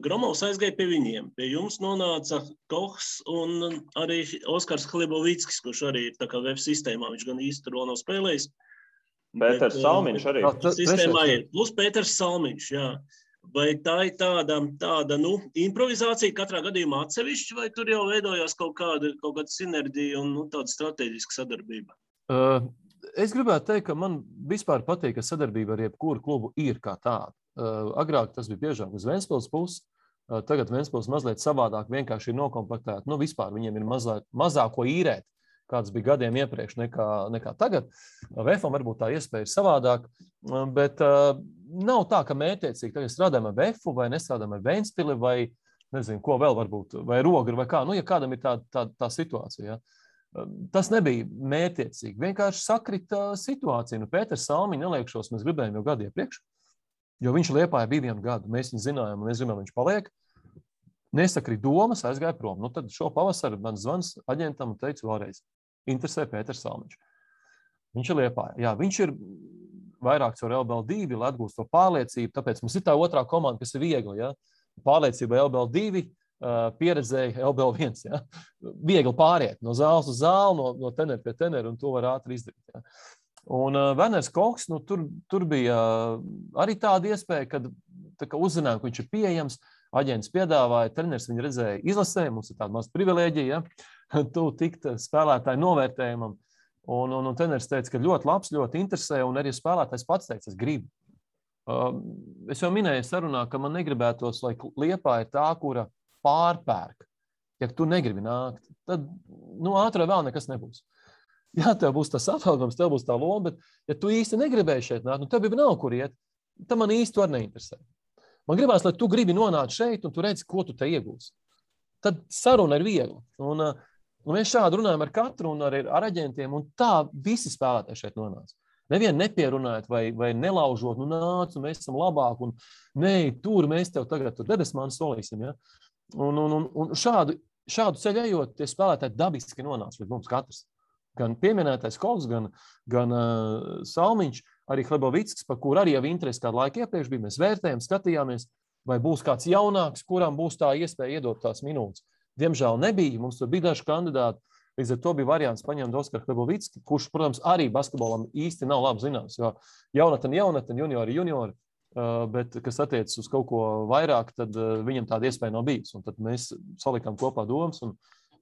Gromovs aizgāja pie viņiem. Pie jums nonāca Kohs un arī Oskars Hlibovickis, kurš arī ir tā kā VF sistēmā. Viņš gan īsti tur vēl nav spēlējis. Pēters Salmiņš arī. Sistēmā ir. Plus Pēters Salmiņš, jā. Vai tā ir tāda improvizācija katrā gadījumā atsevišķi, vai tur jau veidojās kaut kāda sinerģija un tāda strateģiska sadarbība? Es gribētu teikt, ka man vispār patīk, ka sadarbība ar jebkuru klubu ir kā tāda. Agrāk tas bija biežāk uz Ventspils puses, tagad Ventspils mazliet savādāk vienkārši ir nokomplektēta. Vispār viņiem ir mazāk ko īrēt, kāds bija gadiem iepriekš nekā tagad. VFam varbūt tā iespēja ir savādāk, bet nav tā, ka mērķiecīgi tagad strādājam ar VFu vai nestrādājam ar Ventspili vai nezinu, ko vēl varbūt, vai Rogru vai kā. Ja kādam ir tā situācija, ja. Tas nebija mērķiecīgi. Vienkārši sakrita situācija. Pēters Salmiņš neliekšos, mēs gribējām jau gadu iepriekš, jo viņš Liepājā bija 1 gadu. Mēs viņu zinājām, un mēs zinām, viņš paliek. Nesakrīt domas, aizgāja prom. Tad šo pavasaru man zvans aģentam un teicu vēlreiz, interesē Pēters Salmiņš. Viņš ir Liepājā. Jā, viņš ir vairāk caur LBL2, lai atgūst to pārliecību, tāpēc mums ir tā otrā komanda, kas ir viegli. Ja? Pārliecība LBL2, pieredzēja LBL1. Ja? Viegli pāriet no zāles uz zāli, no tenera pie tenera, un to var ātri izdarīt. Ja? Un Werners Kohs, tur bija arī tāda iespēja, kad uzzinājām, ka viņš ir pieejams, aģents piedāvāja, treneris viņu redzēja izlasē, mums ir tāda maza privilēģija, ja? Tu tikt spēlētāju novērtējumam, un treneris teica, ka ļoti labs, ļoti interesē, un arī spēlētājs pats teica, es gribu. es jau minēju sarunā, ka man negribētos, lai Liepāja ir tā, kura pārpērk. Ja tu negribi nākt, tad ātri vēl nekas nebūs. Jā, tev būs tas atalgojums, tev būs tā loma, bet ja tu īsti negribēji šeit nākt, tev jau nav kur iet, tad man īsti var neinteresē. Man gribās, lai tu gribi nonākt šeit un tu redzi, ko tu te iegūsi. Tad saruna ir viegla. Un mēs šādi runājam ar katru un ar aģentiem, un tā visi spēlētāji šeit nonāca. Nevienu nepierunājot vai nelaužot, nāc, un mēs esam labāk, un tur mēs tev tagad debesmānu solīsim. Ja? Un šādu ceļu ejot, tie spēlētāji dabiski nonāca līdz mums katrs. Gan pieminētais Kovs, gan Salmiņš, arī Hlebovickis, par kur arī jau interesi kādu laiku iepriekš bija. Mēs vērtējām, skatījāmies, vai būs kāds jaunāks, kuram būs tā iespēja iedot tās minūtes. Diemžēl nebija, mums tur bija daži kandidāti. Līdz ar to bija variants paņemt Oskaru Hlebovicki, kurš, protams, arī basketbolam īsti nav labi zināms, jo jaunatni, juniori, bet, kas attiecas uz kaut ko vairāk, tad viņam tāda iespēja nav bijis. Un tad mēs salikām kopā domas un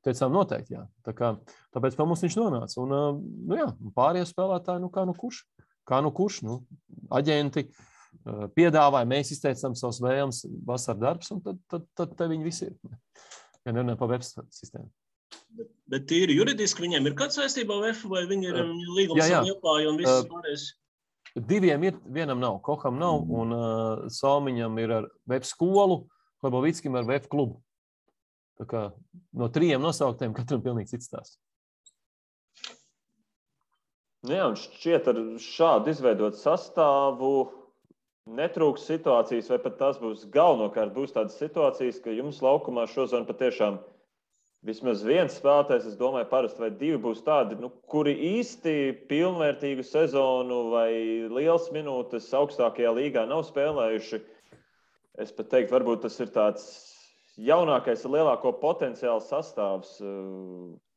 teicām noteikti, jā. Tāpēc mums viņš nonāca. Un pārējie spēlētāji, kā nu kurš, aģenti piedāvāja, mēs izteicām savus vēlmes, vasar darbs, un tad te viņi visi ir. Ja nerunājam par web sistēmu. Bet tīri juridiski viņiem ir kāds saistībā VF, vai viņi ir līgums ar Liepāju un viss pārējais? Diviem ir, vienam nav, Koham nav, un Salmiņam ir ar web skolu, Hlebovickim ar web klubu. Tā kā no 3 nosauktiem katram pilnīgi cits stāsts. Jā, un šķiet ar šādu izveidot sastāvu netrūks situācijas, vai pat tās būs galvenokārt būs tādas situācijas, ka jums laukumā šozon patiešām vismaz viens spēlētājs, es domāju, parasti vai 2 būs tādi, kuri īsti pilnvērtīgu sezonu vai liels minūtes augstākajā līgā nav spēlējuši. Es pat teiktu, varbūt tas ir tāds jaunākais ar lielāko potenciālu sastāvs,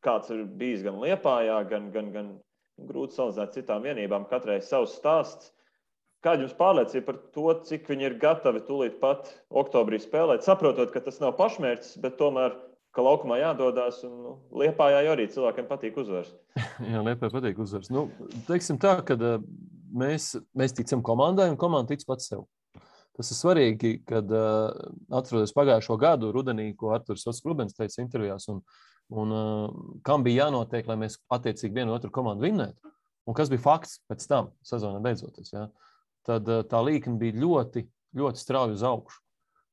kāds ir bijis gan Liepājā, gan grūti salīdzināt citām vienībām, katrai savs stāsts. Kāda jums pārliecība par to, cik viņi ir gatavi tūlīt pat oktobrī spēlēt, saprotot, ka tas nav pašmērķis, bet tomēr ka laukumā jādodās, un Liepājā arī cilvēkiem patīk uzvars. Jā, Liepājā patīk uzvars. Teiksim tā, ka mēs ticam komandai, un komanda tic pats sev. Tas ir svarīgi, kad atrodas pagājušo gadu rudenī, ko Arturs Ots-Klubens teica intervijās, un kam bija jānotiek, lai mēs attiecīgi vienu otru komandu vinnētu, un kas bija fakts pēc tam, sezonā beidzoties. Ja? Tad tā līkne bija ļoti, ļoti strauji uz augšu.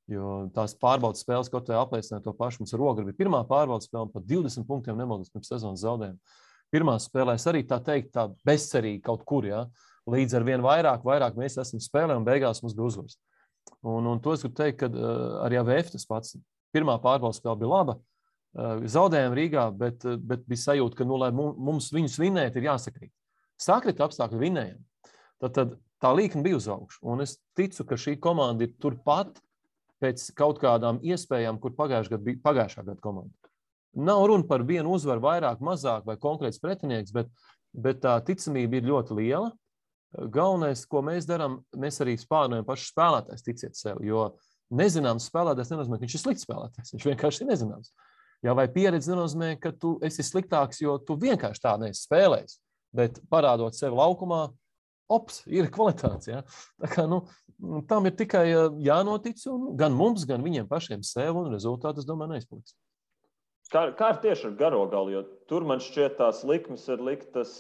Jo tās pārbaudas spēles, kaut vai apliecināja to pašu. Mums ar Ogri bija pirmā pārbaudas spēle, pat 20 punktiem nemaldos pirms sezonas zaudējumu. Pirmā spēlēs arī tā bezcerīgi kaut kur, ja? Līdz ar vien vairāk mēs esam spēlē un beigās mums bija uzvars. Un to es gribu teikt, ka arī AVF tas pats. Pirmā pārbaudas spēle bija laba, zaudējām Rīgā, bet bija sajūta, ka, lai mums viņus vinēt, ir jāsakrīt. Sakrita apstākļi vinējam. Tad tā līkne bija uz augšu. Un es ticu, ka šī komanda ir turpat pēc kaut kādām iespējām, kur pagājušā gada komanda. Nav runa par vienu uzvaru vairāk, mazāk vai konkrēts pretinieks, bet tā ticamība ir ļoti liela. Galvenais, ko mēs darām, mēs arī spārnojam pašu spēlētājs ticiet sev, jo nezināms spēlētājs nenozīmē, ka viņš ir slikts spēlētājs, viņš vienkārši ir nezināms. Jā, vai pieredze nenozīmē, ka tu esi sliktāks, jo tu vienkārši tā neesi spēlējis, bet parādot sevi laukumā, ir kvalitātes. Ja? Tā kā, tam ir tikai jānotic, un gan mums, gan viņiem pašiem sev, un rezultāti, es domāju, neizpaliks. Kā ir tieši ar garo galu, jo tur man šķiet tās likmes ir liktas,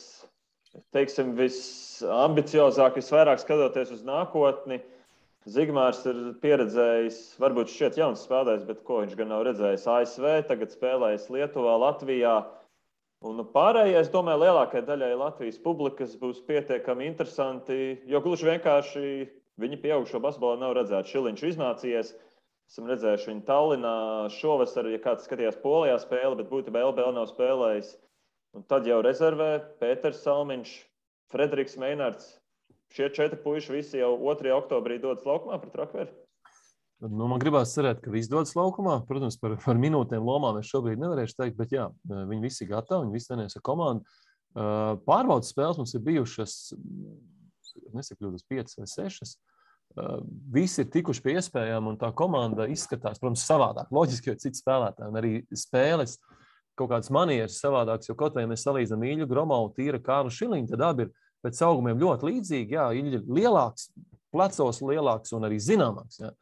teiksim, visambiciozāk, visvairāk skatoties uz nākotni. Zigmārs ir pieredzējis, varbūt šķiet jauns spēlējs, bet ko viņš gan nav redzējis ASV, tagad spēlējis Lietuvā, Latvijā. Un pārējais, domāju, lielākai daļai Latvijas publikas būs pietiekami interesanti, jo gluži vienkārši viņi pieaugušo basketbolā nav redzēti. Šiliņš iznācies, esam redzējuši viņu Tallinā šovasar, ja kāds skatījās Polijā spēli, bet būtībā LBL nav spēlējis. Un tad jau rezervē Pēters Salmiņš, Frederiks Meinards. Šie 4 puiši visi jau 2. oktobrī dodas laukumā pret Rakveri? Man gribās cerēt, ka visi dodas laukumā. Protams, par minūtēm lomām es šobrīd nevarēšu teikt, bet jā, viņi visi gatavi, viņi visi trenējas ar komandu. Pārbaudas spēles mums ir bijušas, nesakļūdos, 5 vai 6. Visi ir tikuši pie iespējām, un tā komanda izskatās, protams, savādāk. Loģiski, jo citi spēlētāji, un arī spēles kaut kādas manieres savādākas, jo kaut vai mēs salīdzinām Ilju Gromau, Tīra, Kārlu Šiliņu, tad abi ir pēc augumiem ļoti līdzīgi. Jā, Ilja ir lielāks, plecos lielāks un arī zināmāks. Ja?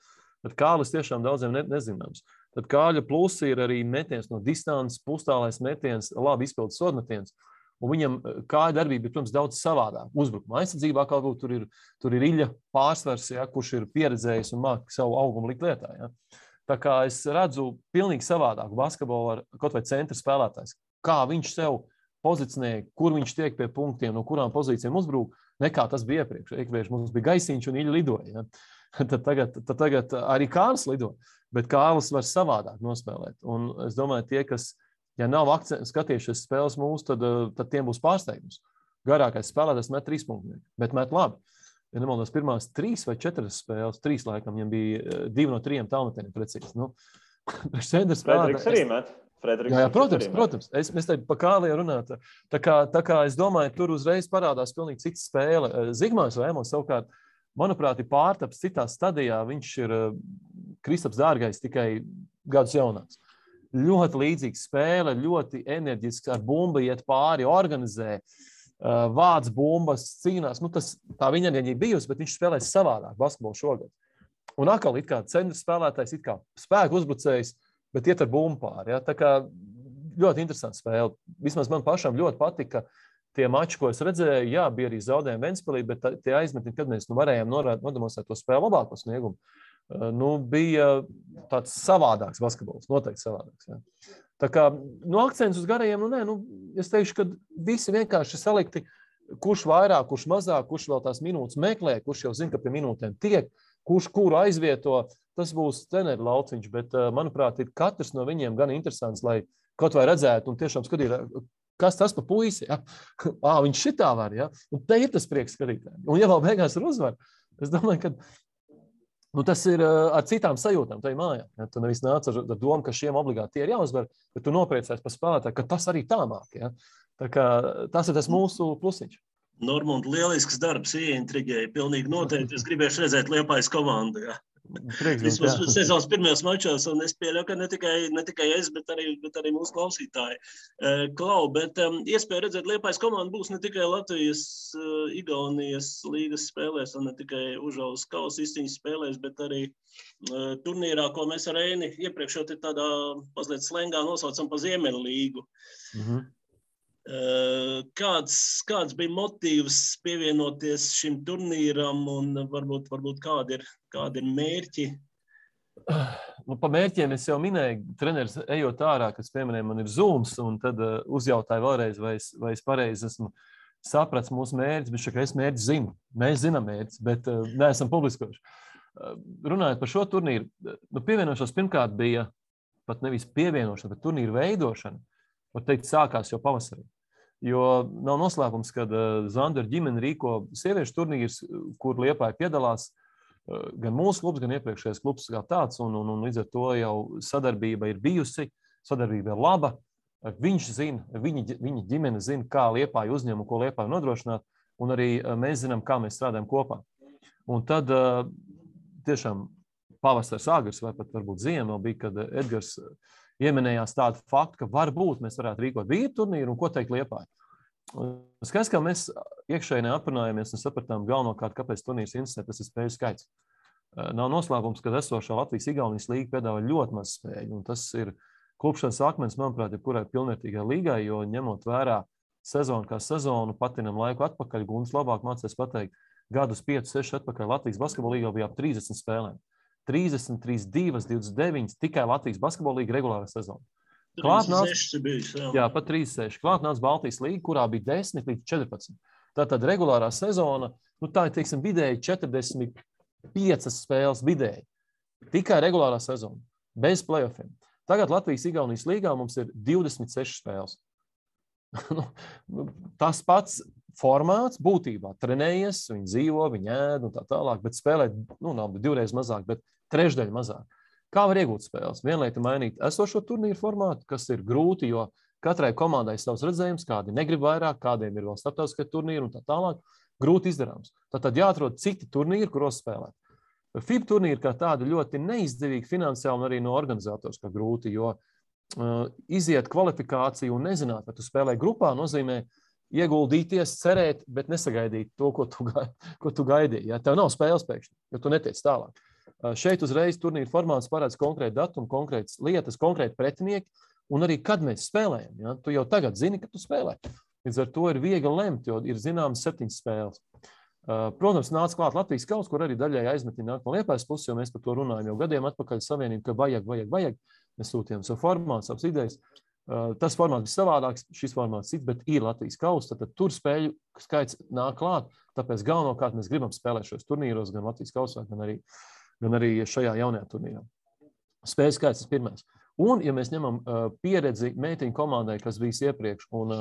Tad Kārlis tiešām daudziem nezināms. Tad Kārļa plusi ir arī metiens no distances, pustālais metiens, labi izpildīts sodmetiens. Un viņam kāja darbība ir, protams, daudz savādāk. Uzbrukuma aizsardzībā kaut kur tur ir Iļa pārsvars, ja, kurš ir pieredzējis un māk savu augumu likt lietā. Ja. Tā kā es redzu pilnīgi savādāku basketbolu ar kaut vai centra spēlētājs. Kā viņš sev pozicionē, kur viņš tiek pie punktiem, no kurām pozīcijām uzbrūk, nekā tas bija iepriekš. Iepriekš mums bija Gaisiņš un Iļa lidoja. Ja. Tad tagad arī Kārlis lido, bet Kārlis var savādāk nospēlēt. Un es domāju, tie, kas ja nav skatījušies spēles mūsu, tad tiem būs pārsteigums. Garākais spēlētājs met 3 punktus, bet met labi. Ja nemaldos, pirmās 3 vai 4 spēles, 3 laikam, viņam bija 2 no 3 tālmetieniem precīzi. Nu, Frederiks arī met. Jā, protams. Mēs te pa Kāliju runāt. Tā kā es domāju, tur uzreiz parādās pilnīgi cita spēle. Zigmārs Vēmons savukārt, manuprāt, ir pārtaps citā stadijā. Viņš ir Kristaps Dārgais tikai gadus jaunāks. Ļoti līdzīga spēle, ļoti enerģiski ar bumbu iet pāri, organizē, vāc bumbas, cīnās. Nu, tā viņa enerģija bijusi, bet viņš spēlēs savādāk basketbolu šogad. Un atkal it kā centra spēlētājs, it kā spēku uzbrucējs, bet iet ar bumbu pāri. Ja? Tā kā ļoti interesanta spēle. Vismaz man pašam ļoti patika tie mači, ko es redzēju. Jā, bija arī zaudējumi Ventspilī, bet tie aizmetni, kad mēs varējām nodemonstrēt to spēli labāko sniegumu. Bija tāds savādāks basketbols, noteikti savādāks. Ja. Tā kā akcents uz garajiem, es teikšu, ka visi vienkārši salikti, kurš vairāk, kurš mazāk, kurš vēl tās minūtes meklē, kurš jau zina, ka pie minūtēm tiek, kurš kuru aizvieto, tas būs treneru lauciņš, bet, manuprāt, ir katrs no viņiem gan interesants, lai kaut vai redzētu un tiešām skatīt, kas tas pa puisi, ja? Viņš šitā var, ja? Un te ir tas prieks skatītājiem. Un ja vēl beigās ir uzvar, es domāju, ka tas ir ar citām sajūtām tajā mājā. Ja? Tu nevis nāc ar domu, ka šiem obligāti tie ir jāuzvar, bet tu nopriecēs par spēlētāju, ka tas arī tā māk. Ja? Tā kā tas ir tas mūsu plusiņš. Normund, lielisks darbs, ieintriģēja. Pilnīgi noteikti. Es gribēšu redzēt Liepājas komandu. Ja? Vismaz sezonas pirmajos mačos, un es pieļauju, ka ne tikai es, bet arī mūsu klausītāji. Klau, bet iespēja redzēt Liepājas komandu būs ne tikai Latvijas, Igaunijas līgas spēlēs, un ne tikai Užaules kausa izcīņas spēlēs, bet arī turnīrā, ko mēs ar Eini iepriekš jau tādā mazliet slengā nosaucam pa Ziemeļlīgu. Kāds bija motīvs pievienoties šim turnīram un varbūt kādi ir mērķi? Pa mērķiem es jau minēju, treneris ejot ārā, kas pieminēja, man ir Zooms, un tad uzjautāju vēlreiz, vai es pareizi esmu saprats mūsu mērķis, bet šeit es mērķis zinu. Mēs zinām mērķis, bet neesam publiskoši. Runājot par šo turnīru, pievienošanos pirmkārt bija pat nevis pievienošana, bet turnīru veidošana, var teikt, sākās jau pavasarī. Jo nav noslēpums, kad Zanderu ģimene rīko sieviešu turnīrs, kur Liepāja piedalās gan mūsu klubs, gan iepriekšējais klubs kā tāds, un līdz ar to jau sadarbība ir bijusi, sadarbība ir laba. Viņš zina, viņa ģimene zina, kā Liepāja uzņem un ko Liepāja nodrošināt, un arī mēs zinām, kā mēs strādājam kopā. Un tad tiešām pavasars agrs vai pat varbūt ziema bija, kad Edgars ieminējās tādu faktu, ka varbūt mēs varētu rīkot vīru turnīru un ko teikt Liepāja. Skaidrs, kā mēs iekšēji aprunājāmies un sapratām galvenokārt, kāpēc turnīrs interesē, tas ir spēļu skaits. Nav noslēpums, ka esošā Latvijas-Igaunijas līga piedāvā ļoti maz spēļu, un tas ir klupšanas akmens, manuprāt, jebkurai pilnvērtīgai līgai, jo ņemot vērā sezonu kā sezonu, patinam laiku atpakaļ, Gunts labāk mācēs pateikt, gadus 5-6 atpakaļ Latvijas basketbola līgā bija ap 30 spēlēm. 30, 32, 29, tikai Latvijas basketbola līga regulārā sezona. 36 bija. Jā, pat 36. Klāt nāca Baltijas līga, kurā bija 10 līdz 14. Tātad regulārā sezona, tā ir, teiksim, vidēji 45 spēles vidēji. Tikai regulārā sezona, bez playoffiem. Tagad Latvijas-Igaunijas līgā mums ir 26 spēles. Tas pats formāts būtībā trenējies, viņi dzīvo, viņi ēd un tā tālāk, bet spēlē, nav divreiz mazāk, bet trešdaļa mazāk. Kā var iegūt spēles? Vienlaita mainīt esošo turnīru formātu, kas ir grūti, jo katrai komandai savs redzējums, kādi negrib vairāk, kādiem ir vēl starptautiskie turnīri un tā tālāk, grūti izdarāms. Tātad jāatrod citi turnīri, kuros spēlēt. FIBA turnīri kā tādi ļoti neizdevīgi finansiāli un arī no organizators kā grūti, jo iziet kvalifikāciju un nezināt, vai tu spēlē grupā, nozīmē ieguldīties, cerēt, bet nesagaidīt to, ko tu gaidīji. Ja? Tev nav spēles pēkšņi, jo tu netiec tālāk. Šeit uzreiz turnīra formāts parāds konkrēti datumi, konkrētas lietas, konkrēti pretinieki, un arī kad mēs spēlējam. Ja? Tu jau tagad zini, ka tu spēlē. Līdz ar to ir viegli lemt, jo ir zināmas 7 spēles. Protams, nāca klāt Latvijas kauss, kur arī daļai aizmetiņi nāk no Liepājas puses, jo mēs par to runājam jau gadiem atpakaļ savienību, ka vajag. Mēs sūtījām savu formātu, savas idejas. Tas formāts bija savādāks, šis formāts cits, bet ir Latvijas kauss, tad tur spēļu skaits nāk klāt, tāpēc galvenokārt mēs gribam spēlēt šos turnīros, gan Latvijas kausā, gan arī šajā jaunajā turnīrā. Spēļu skaits ir pirmais. Un, ja mēs ņemam pieredzi meitiņu komandai, kas bija iepriekš, un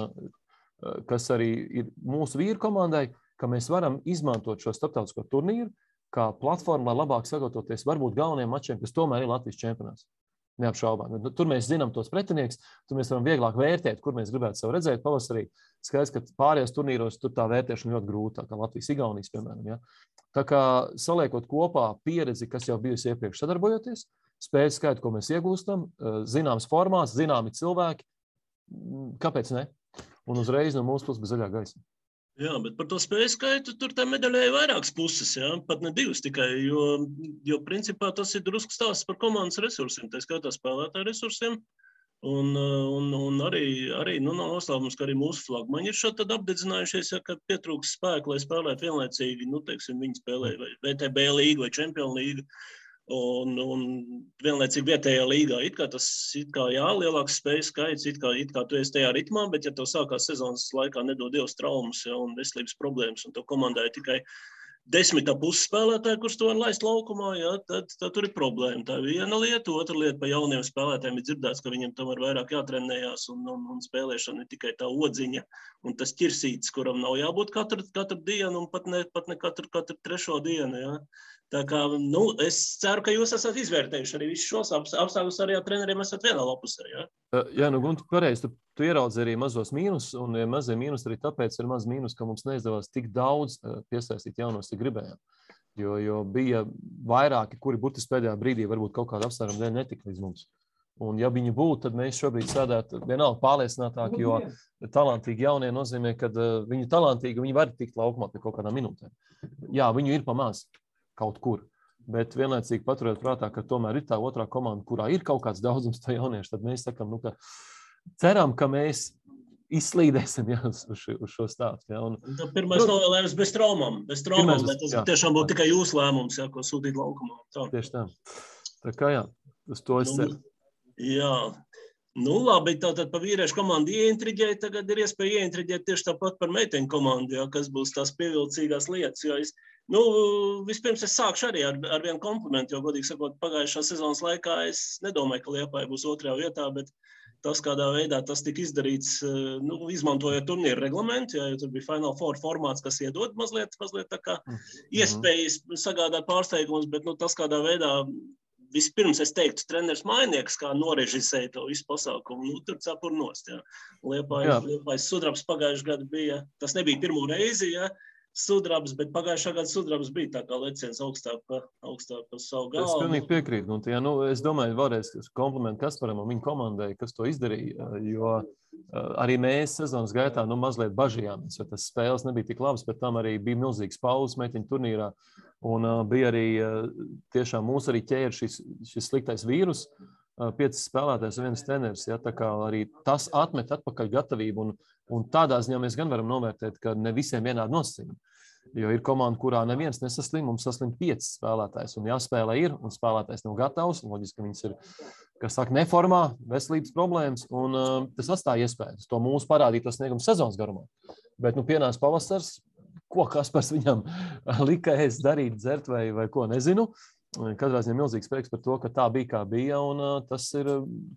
kas arī ir mūsu vīru komandai, ka mēs varam izmantot šo starptautisko turnīru kā platformu, lai labāk sagatavoties varbūt galvenajiem mačiem, kas tomēr ir Latvijas čempionāts. Neapšaubām. Tur mēs zinām tos pretinieks, tur mēs varam vieglāk vērtēt, kur mēs gribētu savu redzēt pavasarī. Skaidrs, ka pārējos turnīros tur tā vērtēšana ļoti grūta, kā Latvijas Igaunijas, piemēram. Ja? Tā kā saliekot kopā pieredzi, kas jau bijusi iepriekš sadarbojoties, spēļu skaitu, ko mēs iegūstam, zināms formāts, zināmi cilvēki, kāpēc ne? Un uzreiz no mūsu puses bija zaļā gaisa. Jā, bet par to spēju skaitu tur tā medaļai ir vairākas puses, jā, pat ne 2 tikai, jo principā tas ir drusku stāsts par komandas resursiem, tā skaitā spēlētāju resursiem, un arī nav noslēpums, ka arī mūsu flagmaņi ir šādi tad apdedzinājušies, ja, ka pietrūks spēku, lai spēlētu vienlaicīgi, teiksim, viņi spēlē vai VTB līgu vai Čempionu līgu, un vienlaicīgi vietējā līgā. It kā jā, lielāks spēju skaits, it kā tu esi tajā ritmā, bet ja tev sākās sezonas laikā nedod Dievs traumas, ja, un veselības problēmas, un tev komandai tikai 10 spēlētāji, kurus tu var laist laukumā, ja, tad tur ir problēma. Tā ir viena lieta, otra lieta pa jauniem spēlētājiem ir dzirdēts, ka viņiem tomēr vairāk jātrenējās, un spēlēšana ir tikai tā odziņa, un tas ķirsītis, kuram nav jābūt katru dienu, un pat ne katru trešo dienu, ja. Tā kā, es ceru, ka jūs esat izvērtējuši arī visus šos apstākļus, arī ar treneriem esat vienā lapusē, ja? Jā, Gunti, pareizi, tu ieraudzi arī mazos mīnus, un mazie mīnus arī tāpēc ir maz mīnus, ka mums neizdevās tik daudz piesaistīt jaunos, cik gribējām. Jo bija vairāki, kuri burtiski pēdējā brīdī varbūt kaut kāda apsvēruma dēļ netika līdz mums. Un ja viņi būtu, tad mēs šobrīd sēdētu vienalga pārliecinātāki, jo talantīgi jaunie nozīmē, ka viņi talantīgi, viņi var tikt laukumā pie kaut kādām minūtēm. Jā, viņu ir pamaz kaut kur, bet vienlaicīgi paturēt prātā, ka tomēr ir tā otrā komanda, kurā ir kaut kāds daudzums to jauniešu, tad mēs sakam, ka ceram, ka mēs izslīdēsim uz šo stāstu. Ja, pirmais novēlējums bez traumām, bet tas tiešām būtu tikai jūsu lēmums, ja, ko sūtīt laukumā. Tā. Tieši tā. Tā kā jā, uz to es ceru. Jā. Labi, tātad pa vīriešu komandu ieintriģēja, tagad ir iespēja ieintriģēt tieši tāpat par meiteņu komandu, ja, kas būs tās pievilcīgās lietas, jo vispirms es sākšu arī ar vienu komplimentu, jo, godīgi sakot, pagājušā sezonas laikā es nedomāju, ka Liepāja būs 2. vietā, bet tas, kādā veidā tas tika izdarīts, izmantojot turnīru reglamentu, jo tur bija Final Four formāts, kas iedod mazliet tā kā iespējas sagādāt pārsteigumus, bet tas, kādā veidā vispirms es teiktu, treneris Mainieks, kā norežisēja to visu pasākumu, tur cepur nost, jā. Liepājas sudrabs pagājušajā gadu bija, tas nebija pirmo reizi, jā, sudrabs, bet pagājušā gada sudrabs bija tā kā leciens augstāk pa savu galvu. Es pilnīgi piekrītu. Es domāju, vēlreiz komplimentu Kasparam un viņa komandai, kas to izdarīja, jo arī mēs sezonas gaitā mazliet bažījāmies, jo tas spēles nebija tik labas, bet tam arī bija milzīgs pauzes meitiņu turnīrā, un bija arī tiešām mūs arī ķēra šis sliktais vīrus, 5 spēlētājs un 1 treneris, ja, tā kā arī tas atmet atpakaļ gatavību, un tādā ziņā mēs gan varam novērtēt, ka ne visiem vienādi nosacījumi. Jo ir komanda, kurā neviens nesaslim, mums saslim 5 spēlētājs, un jāspēlē ir, un spēlētājs nav gatavs, un loģiski, ka viņas ir, kas saka, neformā, veselības problēmas, un tas atstāja iespējas. To mūsu parādīja sniegums sezonas garumā. Bet, pienāca pavasars, ko Kaspars viņam lika ēst, darīt, dzert vai ko, nezinu. Katrā ziņā milzīgs prieks par to, ka tā bija, kā bija, un tas ir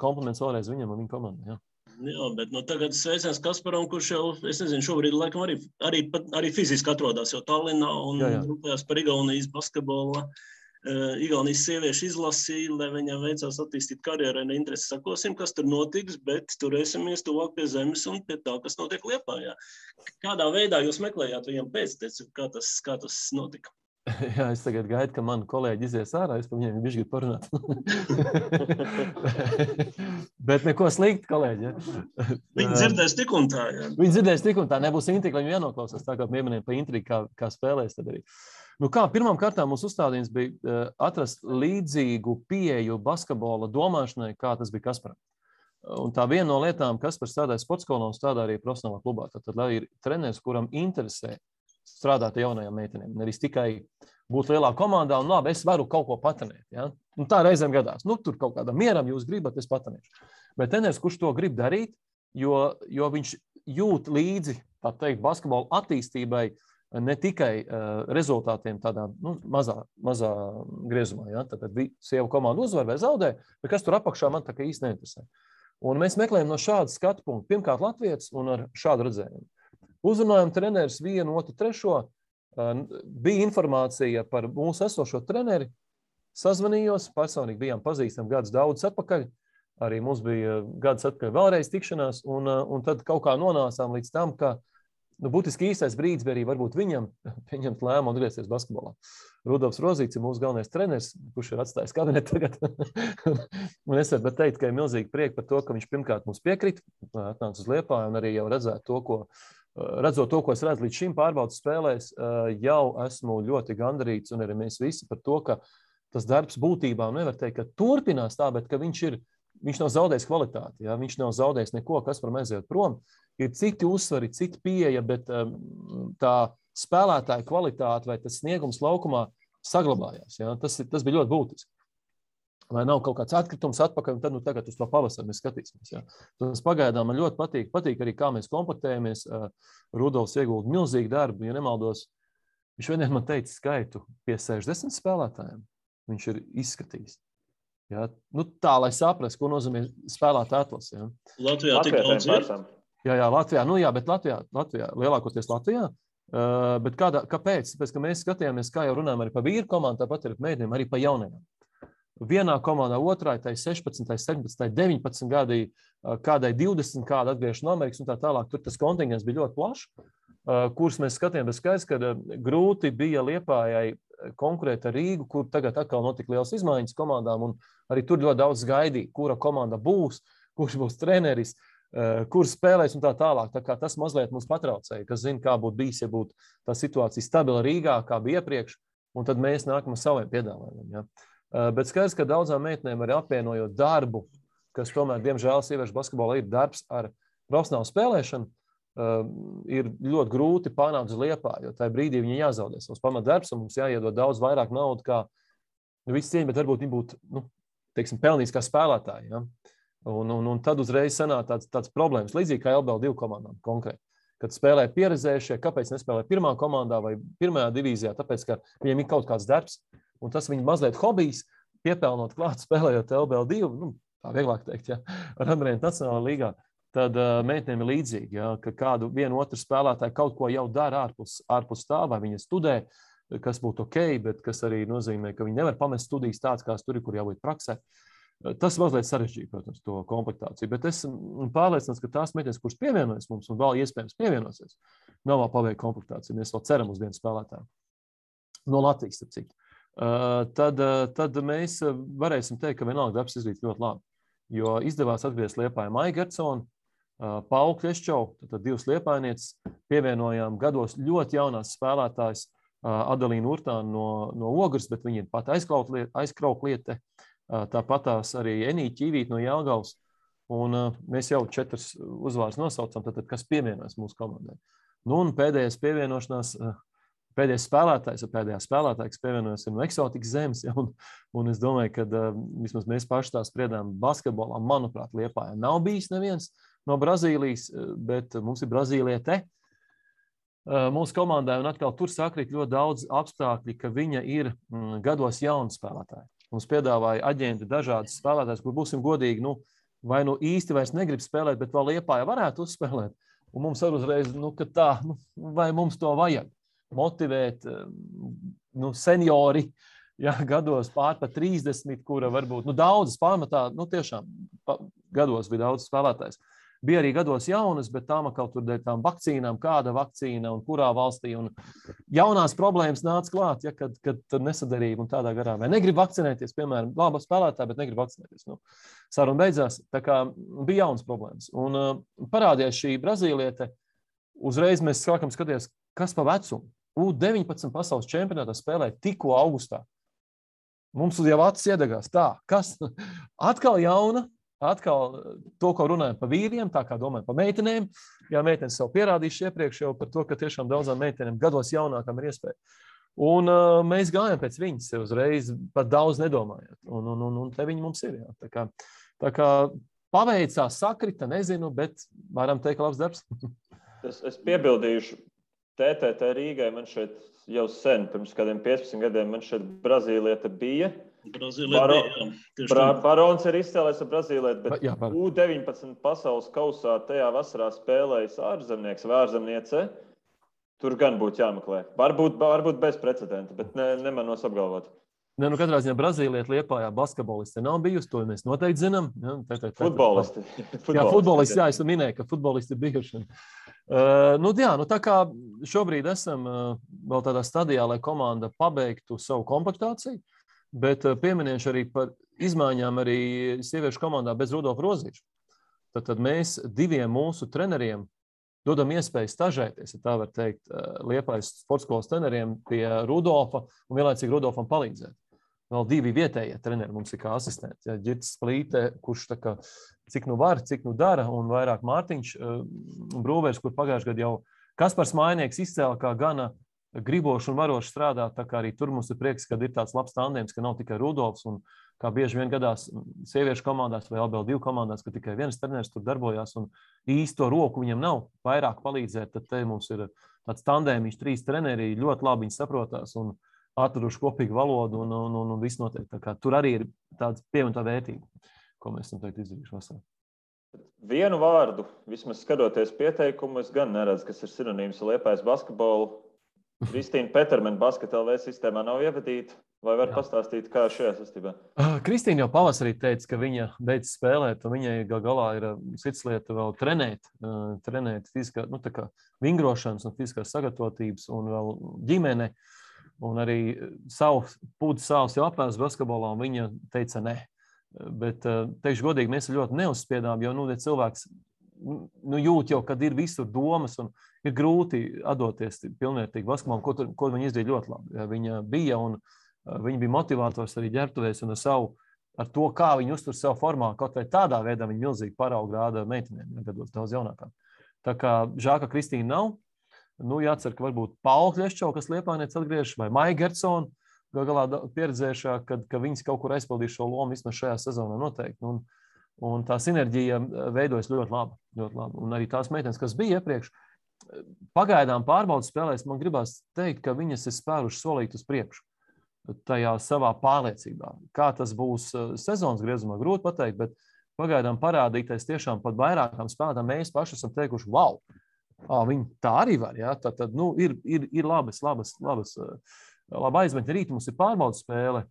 kompliments vēlreiz viņam un viņa komandai. Jā. Jā, bet tagad sveiciens Kasparam, kurš jau, es nezinu, šobrīd laikam arī fiziski atrodas jau Tallinā un rūpējās par Igaunijas basketbola, Igaunijas sieviešu izlasi, lai viņam veicās attīstīt karjerai, interesi sakosim, kas tur notiks, bet turēsimies tuvāk pie zemes un pie tā, kas notiek Liepājā. Kādā veidā jūs meklējāt viņam pēcteci, kā tas notika? Jā, es tagad gaidu, ka mani kolēģi izies ārā, es par viņiem bišķi gribu parunāt. Bet neko slikti, kolēģi. Ja? Viņi dzirdēs tik un tā. Ja? Viņi dzirdēs tik un tā, nebūs intriga, viņi jānoklausās, tā kā pieminēja pa intrigu, kā spēlēs tad arī. Nu kā, pirmām kārtām mūsu uzstādījums bija atrast līdzīgu pieeju basketbola domāšanai, kā tas bija Kasparam. Un tā viena no lietām, Kaspars strādāja sportskolā un strādā arī profesionālā klubā. Tad lai ir treneris, kuram interesē strādāt ar jaunajām meitenēm. Nevis tikai būt lielā komandā un labi, es varu kaut ko patrenēt. Ja? Un tā reizēm gadās. Nu, tur kaut kādam mieram jūs gribat, es patrenēšu. Bet treneris, kurš to grib darīt, jo viņš jūt līdzi, tā teikt, basketbola attīstībai, ne tikai rezultātiem tādā mazā griezumā. Ja? Tad sieva komanda uzvar vai zaudē, bet kas tur apakšā man tā kā īsti neinteresē. Un mēs meklējam no šāda skatu punkta. Pirmkārt, latvietis un ar šādu redzējumu. Uzrunājam treneris 1, 2, 3. Bija informācija par mūsu esošo treneri. Sazvanījos, personīgi bijām pazīstami gadus daudz atpakaļ. Arī mums bija gadus atpakaļ vēlreiz tikšanās. Un tad kaut kā nonācām līdz tam, ka būtiski īstais brīdis bija arī varbūt viņam pieņemt lēmumu un atgriezties basketbolā. Rudolfs Rozīts ir mūsu galvenais treneris, kurš ir atstājis kabinetu tagad. Un es varu teikt, ka ir milzīgi prieki par to, ka viņš pirmkārt mums piekrita, atnāca uz Liepāju un arī jau redzot to, ko es redzu līdz šim pārbaudas spēlēs, jau esmu ļoti gandarīts un arī mēs visi par to, ka tas darbs būtībā nevar teikt, ka turpinās tā, bet ka viņš nav zaudējis kvalitāti, ja? Viņš nav zaudējis neko, kas var aiziet prom. Ir citi uzsvari, citi pieeja, bet tā spēlētāja kvalitāte vai tas sniegums laukumā saglabājās. Ja? Tas bija ļoti būtiski. Vai nav kaut kāds atkritums atpakaļ, un tad tagad uz to pavasaru mēs skatīsimies. Ja? Tas pagaidām man ļoti patīk. Patīk arī, kā mēs komplektējamies. Rudolfs iegulda milzīgu darbu, ja nemaldos. Viņš vieniem man teica skaitu pie 60 spēlētājiem. Viņš ir izskatījis. Ja? Tā, lai saprast, ko nozīmē spēlētāja atlase. Ja? Latvijā tik daudz ir. Jā, Latvijā. Bet Latvijā, lielākoties Latvijā. Bet kāpēc? Tāpēc, ka mēs skatījāmies, kā jau runājam arī par vīru komandu, tāpat arī par meitenēm, arī par jaunajām. Vienā komandā, otrā, tai 16, 17, 19 gadi, kādai 20, kāda atgriežas no Amerikas un tā tālāk. Tur tas kontingents bija ļoti plašs, kurus mēs skatījām, bet skaidrs, ka grūti bija Liepājai konkurēt ar Rīgu, kur tagad atkal notika liels izmaiņas komandām, un arī tur ļoti daudz gaidīja, kura komanda būs, kurš būs treneris, kurš spēlēs un tā tālāk. Tā kā tas mazliet mums patraucēja, kas zina, kā būtu bijis, ja būtu tā situācija stabila Rīgā, kā bija iepriekš, un tad mēs nākam ar saviem piedāvājumiem. Ja? Bet skaidrs, ka daudzām meitenēm arī apvienojot darbu, kas tomēr, diemžēl, sieviešu basketbolā ir darbs ar profesionālu spēlēšanu, ir ļoti grūti panākt uz Liepāju, jo tajā brīdī viņi jāzaudē savus pamatdarbs, un mums jāiedod daudz vairāk naudu, kā visi cieņi, bet varbūt viņi būtu, pelnījis kā spēlētāji. Ja? Un tad uzreiz sanāk tāds problēmas, līdzīgi kā LBL 2 komandām konkrēti. Kad spēlē pieredzējušie, kāpēc nespēlē pirmā komandā vai pirmajā divīzijā, tāpēc, ka viņiem ir kaut kāds darbs, un tas viņa mazliet hobijs, piepelnot klāt, spēlējot LBL 2, tā vieglāk teikt, ja, ar Andrēnu Nacionālā līgā, tad meitenēm ir līdzīgi, ja, ka kādu vienu otru spēlētāju kaut ko jau dara ārpus tā, vai viņa studē, kas būtu ok, bet kas arī nozīmē, ka viņi nevar pamest studijas tāds, kāds tur ir, kur jābūt praksē. Tas mazliet sarežģīja, protams, to komplektāciju, bet es pārliecināts, ka tās meitenes, kuras pievienojas mums un vēl iespējams pievienosies, nav vēl paveikta komplektācija. Mēs vēl ceram uz vienu spēlētāju. No Latvijas, starp citu. Tad mēs varēsim teikt, ka vienalga darbs izdarīts ļoti labi. Jo izdevās atgriezt Liepāju Maiju Gertsonu, Paulu Kļeščovu, tad divas liepājnieces, pievienojām gados ļoti jaunās spēlētājas Adalīnu Urtānu no Ogres, bet viņi ir pat aizkraukliete. Tāpatās arī Enīķa Ķīvīte no Jelgavas. Un mēs jau 4 uzvārdus nosaucam, tad kas pievienojas mūsu komandai. Un pēdējais pievienošanās, pēdējais spēlētājs, kas pievienojas ir no eksotikas zemes. Ja, un es domāju, ka vismaz mēs paši tā spriedām basketbolā, manuprāt, Liepājā nav bijis neviens no Brazīlijas, bet mums ir Brazīliete mūsu komandai. Un atkal tur sakrīt ļoti daudz apstākļi, ka viņa ir gados jauna spēlētāja. Mums piedāvāja aģenti dažādas spēlētājas, kur būsim godīgi, vai īsti vairs negrib spēlēt, bet vēl Liepājā varētu uzspēlēt. Un mums ar uzreiz, ka tā, vai mums to vajag motivēt, seniori, ja, gados pār pa 30, kura varbūt, daudzas pamatā, tiešām gados bija daudz spēlētājs. Bija arī gados jaunas, bet tām kaut tur dēļ tām vakcīnām, kāda vakcīna un kurā valstī. Un jaunās problēmas nāca klāt, ja, kad tur nesadarība un tādā garā. Vai negrib vakcinēties, piemēram, laba spēlētāja, bet negrib vakcinēties. Nu, saruna beidzās, tā kā bija jaunas problēmas. Un parādījās šī brazīliete, uzreiz mēs sākam skatīties, kas pa vecumu. U19 pasaules čempionātā spēlē tikko augustā. Mums jau acis iedegās. Tā, kas atkal jauna, atkal to, ko runājam par vīriem, tā kā domājam par meitenēm. Jā, meitenes sev pierādījuši iepriekš jau par to, ka tiešām daudzām meitenēm gados jaunākām ir iespēja. Un mēs gājam pēc viņas uzreiz, pat daudz nedomājot. Un te viņi mums ir. Jā. Tā kā paveicās, sakrita, nezinu, bet varam teikt, labs darbs. Es piebildīšu. TTT Rīgai man šeit jau sen, pirms kādiem 15 gadiem, man šeit brazīliete bija. Barons ir izcēlējis ar brazīlieti, bet U19 pasaules kausā tajā vasarā spēlējis ārzemnieks vai ārzemniece. Tur gan būtu jāmeklē. Varbūt bez precedenta, bet nemanos apgalvot. Ne, nu katrā ziņā Brazīlieta Liepājā basketbolisti nav bijusi, to mēs noteikti zinām. Ja, futbolisti. Jā, futbolisti, jā, es minēju, ka futbolisti ir bijuši. Tā kā šobrīd esam vēl tādā stadijā, lai komanda pabeigtu savu komplektāciju, bet pieminēšu arī par izmaiņām arī sieviešu komandā bez Rudolfa Rozīša. Tad mēs diviem mūsu treneriem dodam iespēju stažēties, ja tā var teikt, Liepājas sportskolas treneriem pie Rudolfa un vienlaicīgi Rudolfam palīdzēt. Vēl divi vietējie treneri mums ir kā asistenti. Ja, Ģirts Plīte, kurš tā kā cik nu var, cik nu dara, un vairāk Mārtiņš Brūvers, kur pagājušajā gadā jau Kaspars Mājnieks izcēla kā gana griboši un varoši strādāt, tā kā arī tur mums ir prieks, kad ir tāds labs tandēms, ka nav tikai Rudolfs, un kā bieži vien gadās sieviešu komandās vai LBL2 komandās, ka tikai viens treneris tur darbojās, un īsto roku viņam nav vairāk palīdzēt, tad te mums ir tāds tandēmiņš, 3 treneri, ļoti labi viņi saprotās, un atraduši kopīgu valodu un viss notiek. Tā kā tur arī ir tāds pievienotā vērtība, ko mēs esam teikt izdarījuši vasarā. Vienu vārdu, vismaz skatoties pieteikumu, es gan neredzu, kas ir sinonīms ar Liepājas basketbolu. Kristīna Petermena Basket LV sistēmā nav ievadīta. Vai var pastāstīt, kā šajā sastībā? Kristīna jau pavasarī teica, ka viņa beidz spēlēt, un viņai galā ir cits lieta vēl trenēt fiziskā, tā kā vingrošanas un fiziskās sagatavotības un vēl ģimene. Un arī savs jau apēs basketbolā, un viņa teica ne. Bet, teikšu godīgi, mēs ļoti neuzspiedām, jo cilvēks jūt jau, kad ir visur domas un ir grūti atdoties pilnvērtīgi basketbolam, ko viņa izdarīja ļoti labi. Viņa bija un viņa bija motivators arī ģērbtuvēs un ar to, kā viņa uztur savu formā, kaut vai tādā veidā viņa milzīgi paraugu rāda meitenēm, gados daudz jaunākām. Tā kā žēl, ka Kristīna nav. Jācer, ka varbūt Paula Kļeščova, kas Liepājniece atgriežas, vai Maija Gertsona, galā pieredzējušā, ka viņas kaut kur aizpildīs šo lomu vismaz šajā sezonā noteikti. Un tā sinerģija veidojas ļoti labi. Un arī tās meitenes, kas bija iepriekš, pagaidām pārbaudas spēlēs, man gribās teikt, ka viņas ir spēruši solīt uz priekšu tajā savā pārliecībā. Kā tas būs sezonas griezumā, grūti pateikt, bet pagaidām parādīties tiešām pat vairākām spēlētām mēs paši esam teikuši, wow! Viņi tā arī var, jā. Tad ir labas aizmetņi. Rīt mums ir pārbaudas spēle.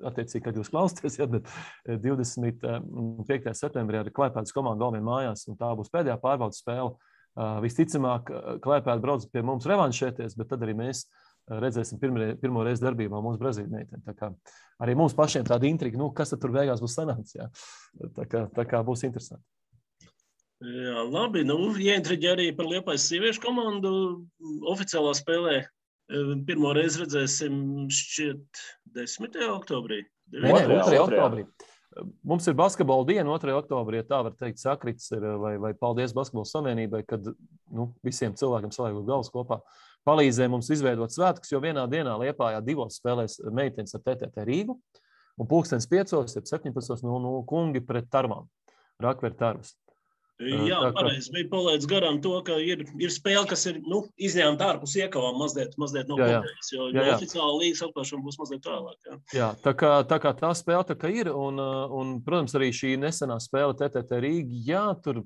Attiecīgi, kad jūs klausāties, bet 25. septembrī ar Klaipēdas komandu Galvien mājās, un tā būs pēdējā pārbaudas spēle. Visticamāk, Klaipēda brauc pie mums revanšēties, bet tad arī mēs redzēsim pirmo reizi darbībā mūsu Brazīļu meiteni. Tā kā arī mums pašiem tāda intriga, kas tad tur beigās būs sanāks, jā. Tā kā būs interesanti. Jā, labi. Ieintriģē arī par Liepājas sieviešu komandu. Oficiālā spēlē pirmo reizi redzēsim šķiet 10. oktobrī. 2. oktobrī. Mums ir basketbola diena 2. oktobrī, ja tā var teikt, sakrits ir, vai paldies Basketbola savienībai, kad visiem cilvēkiem saliegot galvas kopā palīdzēja mums izveidot svētkus, jo vienā dienā Liepājā 2 spēlēs meitenes ar TTT Rīgu, un 17:00, 17:00 kungi pret Tarmām, Rakveru Tarvas. Jā, pareizi. Bija palaidis garām to, ka ir spēle, kas ir izņēmta ārpus iekavām mazliet no kopējas, jo oficiāla līgas atklāšana būs mazliet tālāk. Jā, tā kā tā spēle tā kā ir, un, protams, arī šī nesenā spēle TTT Rīga, jā, tur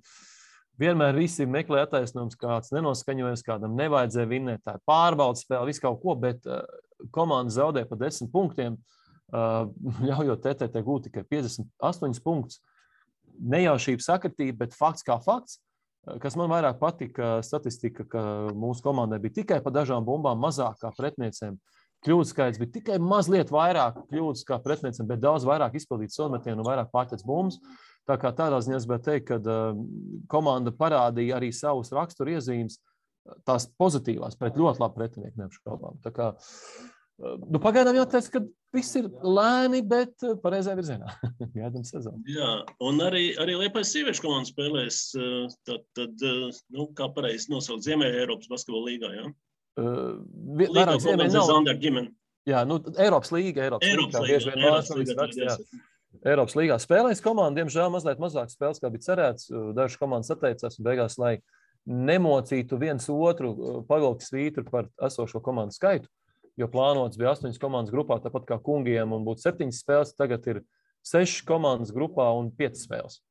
vienmēr visi meklē attaisnojums, kāds nenoskaņojas, kādam nevajadzēja vinnēt, tā ir pārbaudas spēle, visu kaut ko, bet komanda zaudē pa 10 punktiem, ļaujot TTT gūt tikai 58 punktus. nejaušība sakritība, bet fakts kā fakts. Kas man vairāk patika, statistika, ka mūsu komandai bija tikai pa dažām bumbām mazāk kā pretiniecēm. Kļūdu skaits bija tikai mazliet vairāk kļūdas kā pretiniecēm, bet daudz vairāk izpildīt sodmetienu un vairāk pārtec bumbas. Tā kā tādā ziņā es gribētu teikt, ka komanda parādīja arī savus raksturu iezīmes, tās pozitīvās pret ļoti labu pretinieku neapšaubām. Tā kā pagaidām jāteic, ka viss ir lēni, bet pareizajā virzienā. Gaidām sezonu. Jā, un arī Liepājas sieviešu komanda spēlēs, tad kā pareizi nosaukt Ziemeļa Eiropas basketbola līgā, jā? Vairāk Ziemeļa nav. Zander ģimeni. Jā, Eiropas līga. Eiropas līgā spēlēs komanda, diemžēl mazliet mazāk spēles, kā bija cerēts. Dažas komandas atteicās un beigās, lai nemocītu viens otru pavilkt svītru par esošo komandu skaitu, jo plānots bija 8 komandas grupā, tāpat kā kungiem, un būtu 7 spēles, tagad ir 6 komandas grupā un 5 spēles.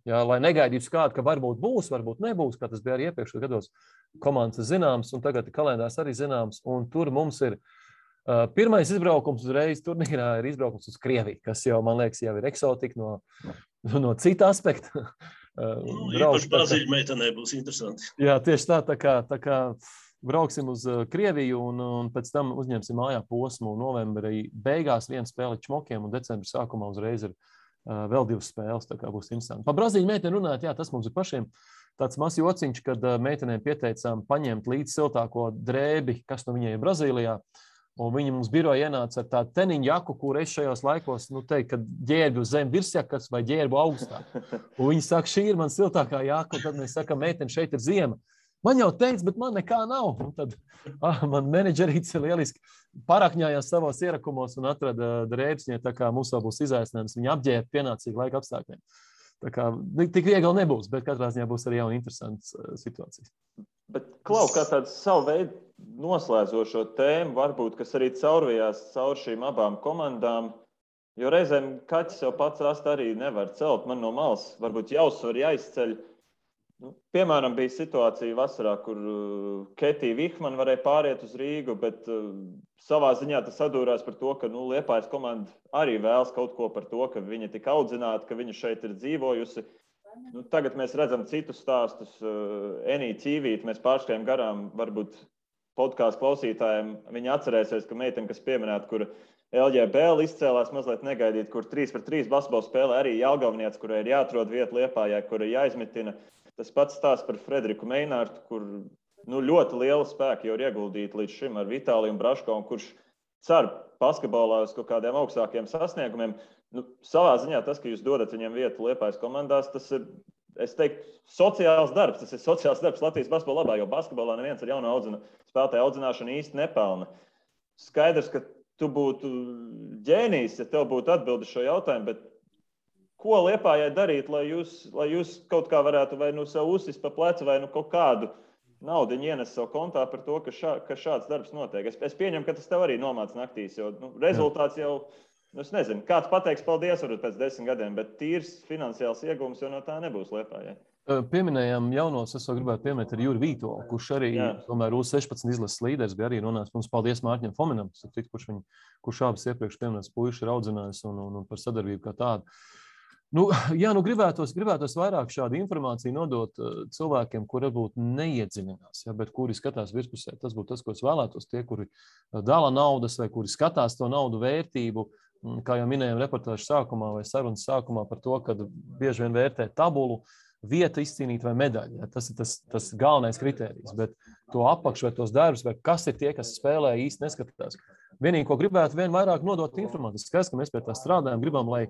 Jā, lai negaidītu kādu, ka varbūt būs, varbūt nebūs, kā tas bija arī iepriekšējos gados. Komandas zināms, un tagad kalendārs arī zināms, un tur mums ir pirmais izbraukums uzreiz turnīrā ir izbraukums uz Krieviju, kas jau, man liekas, jau ir eksotika no cita aspekta. Īpaši Brazīļu meitenē būs interesanti. Jā, tieši tā kā brauksim uz Krieviju un pēc tam uzņemsim mājā posmu novembrī beigās vienu spēli čmokiem un decembra sākumā uzreiz ir vēl 2 spēles, tā kā būs interesanti. Pa Brazīļu meiteni runājot, jā, tas mums ir pašiem tāds mazs jociņš, kad meitenēm pieteicām paņemt līdz siltāko drēbi, kas no viņai ir Brazīlijā. Un viņi mums biroja ienāca ar tādu teniņu jaku, kur es šajos laikos, teikt, ka ģērbu zem virsjakas vai ģērbu augstāk. Un viņi saka, šī ir man siltākā jaka, un tad mēs sakam, meiteni, šeit ir ziema. Man jau teica, bet man nekā nav. Un tad man menedžerīts lieliski parakņājās savos ierakumos un atrada drēbes, tā kā mums vēl būs izaicinājums. Viņi apģērba pienācīgi laika apstākļiem. Tā kā tik viegli nebūs, bet katrā ziņā būs arī jauna interesantas situācijas. Bet, Klau, kā tāds savu veidu noslēdzošo tēmu, varbūt, kas arī caurvījās caur šīm abām komandām, jo reizēm kaķis jau pats rast arī nevar celt. Man no malas varbūt jāuzsver, jāizceļ. Piemēram, bija situācija vasarā, kur Ketija Vihmana varēja pāriet uz Rīgu, bet savā ziņā tas sadūrās par to, ka Liepājas komanda arī vēlas kaut ko par to, ka viņa tik audzināta, ka viņa šeit ir dzīvojusi. Tagad mēs redzam citus stāstus. Enī Ķīvīt, mēs pārskrējam garām, varbūt podkāstu klausītājiem. Viņi atcerēsies, ka meitene, kas pieminēta, kur LJBL izcēlās mazliet negaidīt, kur 3-3 basketbola spēlē arī Jelgavniec, kurai ir jāatrod vieta Liepājā, kura jāizmitina. Tas pats stāsts par Frederiku Meinārtu, kur ļoti liela spēka jau ir ieguldīta līdz šim ar Vitāliju un Braško, kurš cer basketbolā uz kaut kādiem augstākiem sasniegumiem. Savā ziņā tas, ka jūs dodat viņiem vietu Liepājas komandās, tas ir, es teiktu, sociāls darbs. Tas ir sociāls darbs Latvijas basketbola labā, jo basketbolā neviens ar jaunu spēlētāju audzināšanu īsti nepelna. Skaidrs, ka tu būtu ģēnijs, ja tev būtu atbildi šo jautājumu, bet ko Liepājai darīt, lai jūs kaut kā varētu vai sev uzsist pa plecu vai kaut kādu naudu ienes savu kontā par to, ka šāds darbs notiek. Es pieņemu, ka tas tev arī nomāc naktīs, jo rezultāts jau, es nezinu, kāds pateiks paldies varbūt pēc 10 gadiem, bet tīrs finansiāls iegūms jau no tā nebūs Liepājai. Pieminējām jaunos, es vēl gribētu pieminēt ar Juri Vītolu, kurš arī tomēr U16 izlases līderis bija arī runājis. Mums paldies Mārķim Fominam, kurš abas iepriekš pieminētas puiši ir audzinājis un par sadarbību kā tādu. Gribētos vairāk šādu informāciju nodot cilvēkiem, kuri varbūt neiedziļinās, bet kuri skatās virspusē. Tas būtu tas, ko es vēlētos. Tie, kuri dala naudas vai kuri skatās to naudu vērtību, kā jau minējām reportāžu sākumā vai sarunas sākumā par to, ka bieži vien vērtē tabulu, vieta izcīnīt vai medaļu. Tas ir tas galvenais kritērijs, bet to apakšu vai tos darbus, vai kas ir tie, kas spēlē, īsti neskatās. Vienīgi, ko gribētu vien vairāk nodot informāciju, skaidrs, ka mēs pie tā strādājam, gribam, lai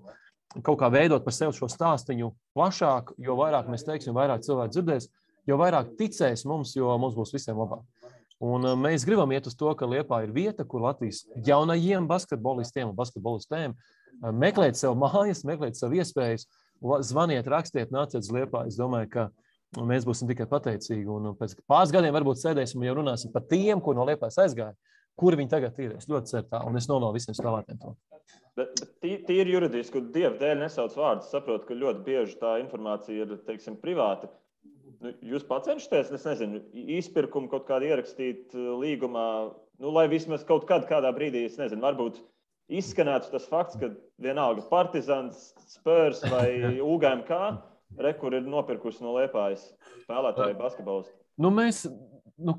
kaut kā veidot par sevi šo stāstiņu plašāk, jo vairāk mēs teiksim, jo vairāk cilvēki dzirdēs, jo vairāk ticēs mums, jo mums būs visiem labāk. Un mēs gribam iet uz to, ka Liepā ir vieta, kur Latvijas jaunajiem basketbolistiem un basketbolistēm meklēt sev mājas, meklēt sev iespējas, zvaniet, rakstiet, nāciet uz Liepā. Es domāju, ka mēs būsim tikai pateicīgi. Un pēc pāris gadiem varbūt sēdēsim un jau runāsim par tiem, kur no Liepājas aizgāja, kuri viņi tagad ir. Es ļoti ceru tā, un es novēlu visiem spēlētājiem to. Bet tīri juridiski, Dieva dēļ nesauc vārdus, saprotu, ka ļoti bieži tā informācija ir, teiksim, privāta. Jūs pacenšaties, es nezinu, izpirkumu kaut kādu ierakstīt līgumā, lai vismaz kaut kādā brīdī, es nezinu, varbūt izskanētu tas fakts, ka vienalga Partizans, Spurs vai UGMK, kur ir nopirkusi no Liepājas spēlētāju basketbolistu?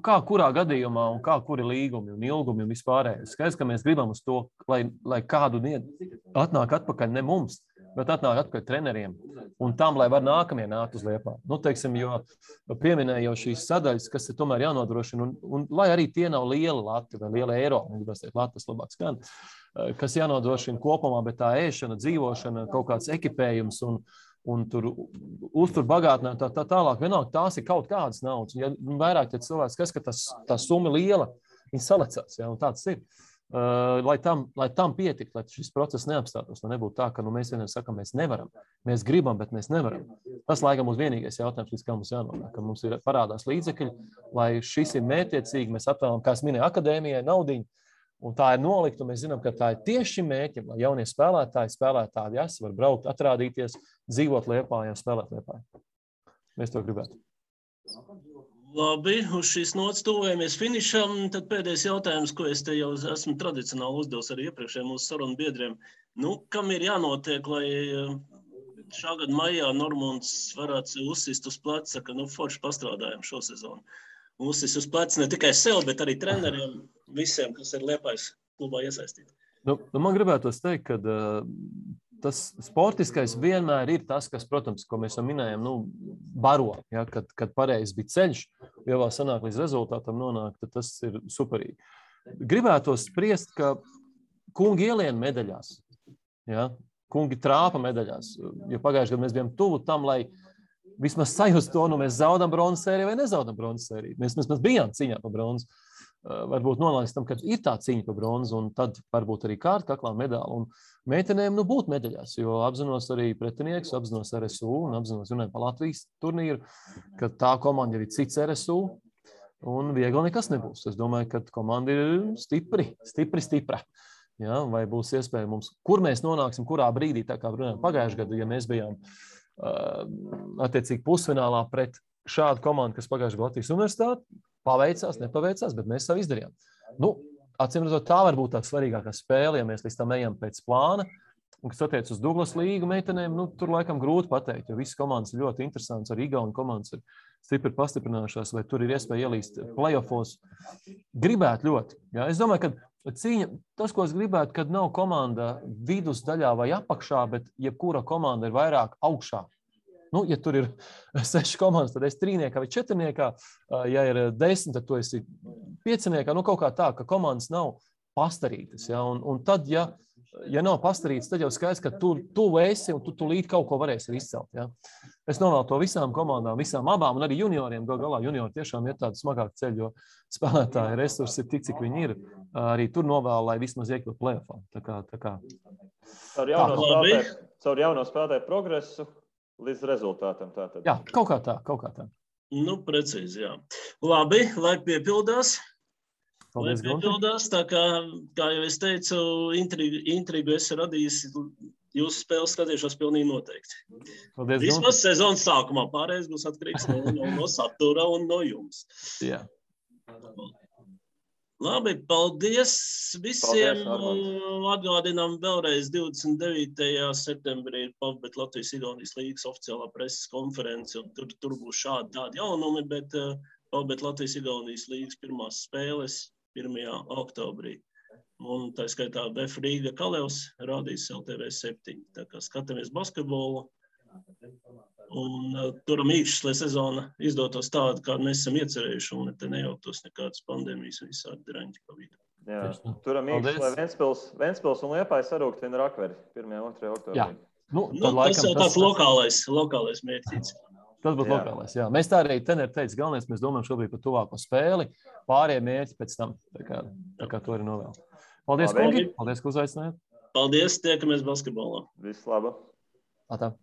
Kā kurā gadījumā un kā kuri līgumi un ilgumi un vispārējais. Skaidrs, ka mēs gribam uz to, lai kādu atnāk atpakaļ ne mums, bet atnāk atpakaļ treneriem un tam, lai var nākamie nākt uz Liepāju. Jo pieminēja jau šīs sadaļas, kas ir tomēr jānodrošina, un lai arī tie nav lieli lati vai liela eiro, Latvijas labāk skan, kas jānodrošina kopumā, bet tā ēšana, dzīvošana, kaut kāds ekipējums un tur uztur bagātinājumi tā tālāk. Vienalga, tās ir kaut kādas naudas. Ja vairāk ja cilvēks skats, ka tā summa liela, viņi salecās, ja, un tāds ir. Lai tam pietiktu, lai šis process neapstātos, lai nebūtu tā, ka mēs vienam sakam, mēs nevaram. Mēs gribam, bet mēs nevaram. Tas, laikam, mums vienīgais jautājums, līdz kā mums jānonāk, ka mums ir parādās līdzekļi, lai šis ir mērķiecīgi, mēs atvēlam, kā es minēju, akadēmijai naudiņu, un tā ir nolikta, un mēs zinām, ka tā ir tieši šim mērķim, lai jaunie spēlētāji var braukt, atrādīties, dzīvot Liepājā, spēlēt Liepājā. Mēs to gribētu. Labi, uz šīs nots tuvojamies finišam. Tad pēdējais jautājums, ko es te jau esmu tradicionāli uzdevis arī iepriekšējiem mūsu sarunu biedriem. Kam ir jānotiek, lai šā gada maijā Normunds varētu uzsist uz pleca, ka forši pastrādājam šo sezonu? Uzsist uz pleca ne tikai sev, bet arī treneriem, visiem, kas ir Liepājas klubā iesaistīti. Man gribētos teikt, ka tas sportiskais vienmēr ir tas, kas, protams, ko mēs jau minējam, baro, ja, kad pareizi bija ceļš, ja vēl sanāk līdz rezultātam nonāk, tad tas ir superīgi. Gribētos spriest, ka kungi ielien medaļās, ja, kungi trāpa medaļās, jo pagājušajā gadā mēs bijām tuvu tam, lai vismaz sajust to, mēs zaudam bronzas sēriju vai nezaudam bronzas sēriju. Mēs bijām cīņā par bronzu. Varbūt nonāks tam, ka ir tā cīņa par bronzu, un tad varbūt arī kaklā medaļa. Un meitenēm būt medaļās, jo apzinos arī pretinieks, apzinos RSU un apzinos runājot par Latvijas turnīru, ka tā komanda ir cits RSU, un viegli nekas nebūs. Es domāju, ka komanda ir stipra. Ja, vai būs iespēja mums, kur mēs nonāksim, kurā brīdī, tā kā runājam pagājušajā gadā, ja mēs bijām attiecīgi pusfinālā pret šādu komandu, kas pagājušajā gadā Latvijas universitāti, paveicās, nepaveicās, bet mēs savu izdarījām. Acīm redzot, tā var būt tā svarīgākā spēle, ja mēs līdz tam ejam pēc plāna. Un, kas attiec uz Douglas līgu meitenēm, tur laikam grūti pateikt, jo visas komandas ir ļoti interesants, arī Igauni komandas ir stipri pastiprinājušās, vai tur ir iespēja ielīst playoffos. Gribētu ļoti. Ja? Es domāju, ka cīņa, tas, ko es gribētu, kad nav komanda vidusdaļā vai apakšā, bet jebkura komanda ir vairāk augšā. Ja tur ir 6 komandas, tad es 3-niekā vai 4-niekā, ja ir 10, tad tu esi 5-niekā, kaut kā tā, ka komandas nav pastarītas. Ja? Un tad, ja nav pastarītas, tad jau skaidrs, ka tu esi un tu līdz kaut ko varēsi izcelt. Ja? Es novēlu to visām komandām, visām abām, un arī junioriem, galā juniori tiešām ir tāda smagāka ceļa, jo spēlētāji resursi ir tik, cik viņi ir. Arī tur novēlu, lai vismaz iekļūt play-offā. Tā kā. Caur jauno spēlētāju progresu līdz rezultātam. Tātad. Jā, kaut kā tā. Precīzi, jā. Labi, lai piepildās. Paldies, tā kā jau es teicu, intrigu esi radījis, jūsu spēles skatīšos pilnīgi noteikti. Paldies, vismaz sezonas sākumā, pārējais būs atkarīgs no satura un no jums. Jā. Labi, paldies visiem. Atgādinām vēlreiz 29. septembrī ir PAVBet Latvijas-Igaunijas līgas oficiālā preses konference, un tur būs tādi jaunumi, bet PAVBet Latvijas-Igaunijas līgas pirmās spēles 1. oktobrī. Un tā skaitā BF Rīga Kalevs rādīs LTV7. Tā kā skatāmies basketbolu. Un turam īkšķis, lai sezona izdotos tādu, kādu mēs esam iecerējuši, un te nejauktos nekādas pandēmijas un visādi draņķi pa vidu. Jā, turam īkšķis, lai Ventspils un Liepāja sarūktina Rakveri 1. un 2. oktobrī. Jā. Tas jau tāds lokālais mērķis. Tas būtu lokālais, jā. Mēs tā arī teneri teica, galvenais, mēs domājam šobrīd par tuvāko spēli, pārējie mērķi pēc tam. Tā kā to arī novēl. Paldies, kungi. Paldies, ka uzaicinājāt. Paldies, tiekamies basketbolā. Viss laba. Atā.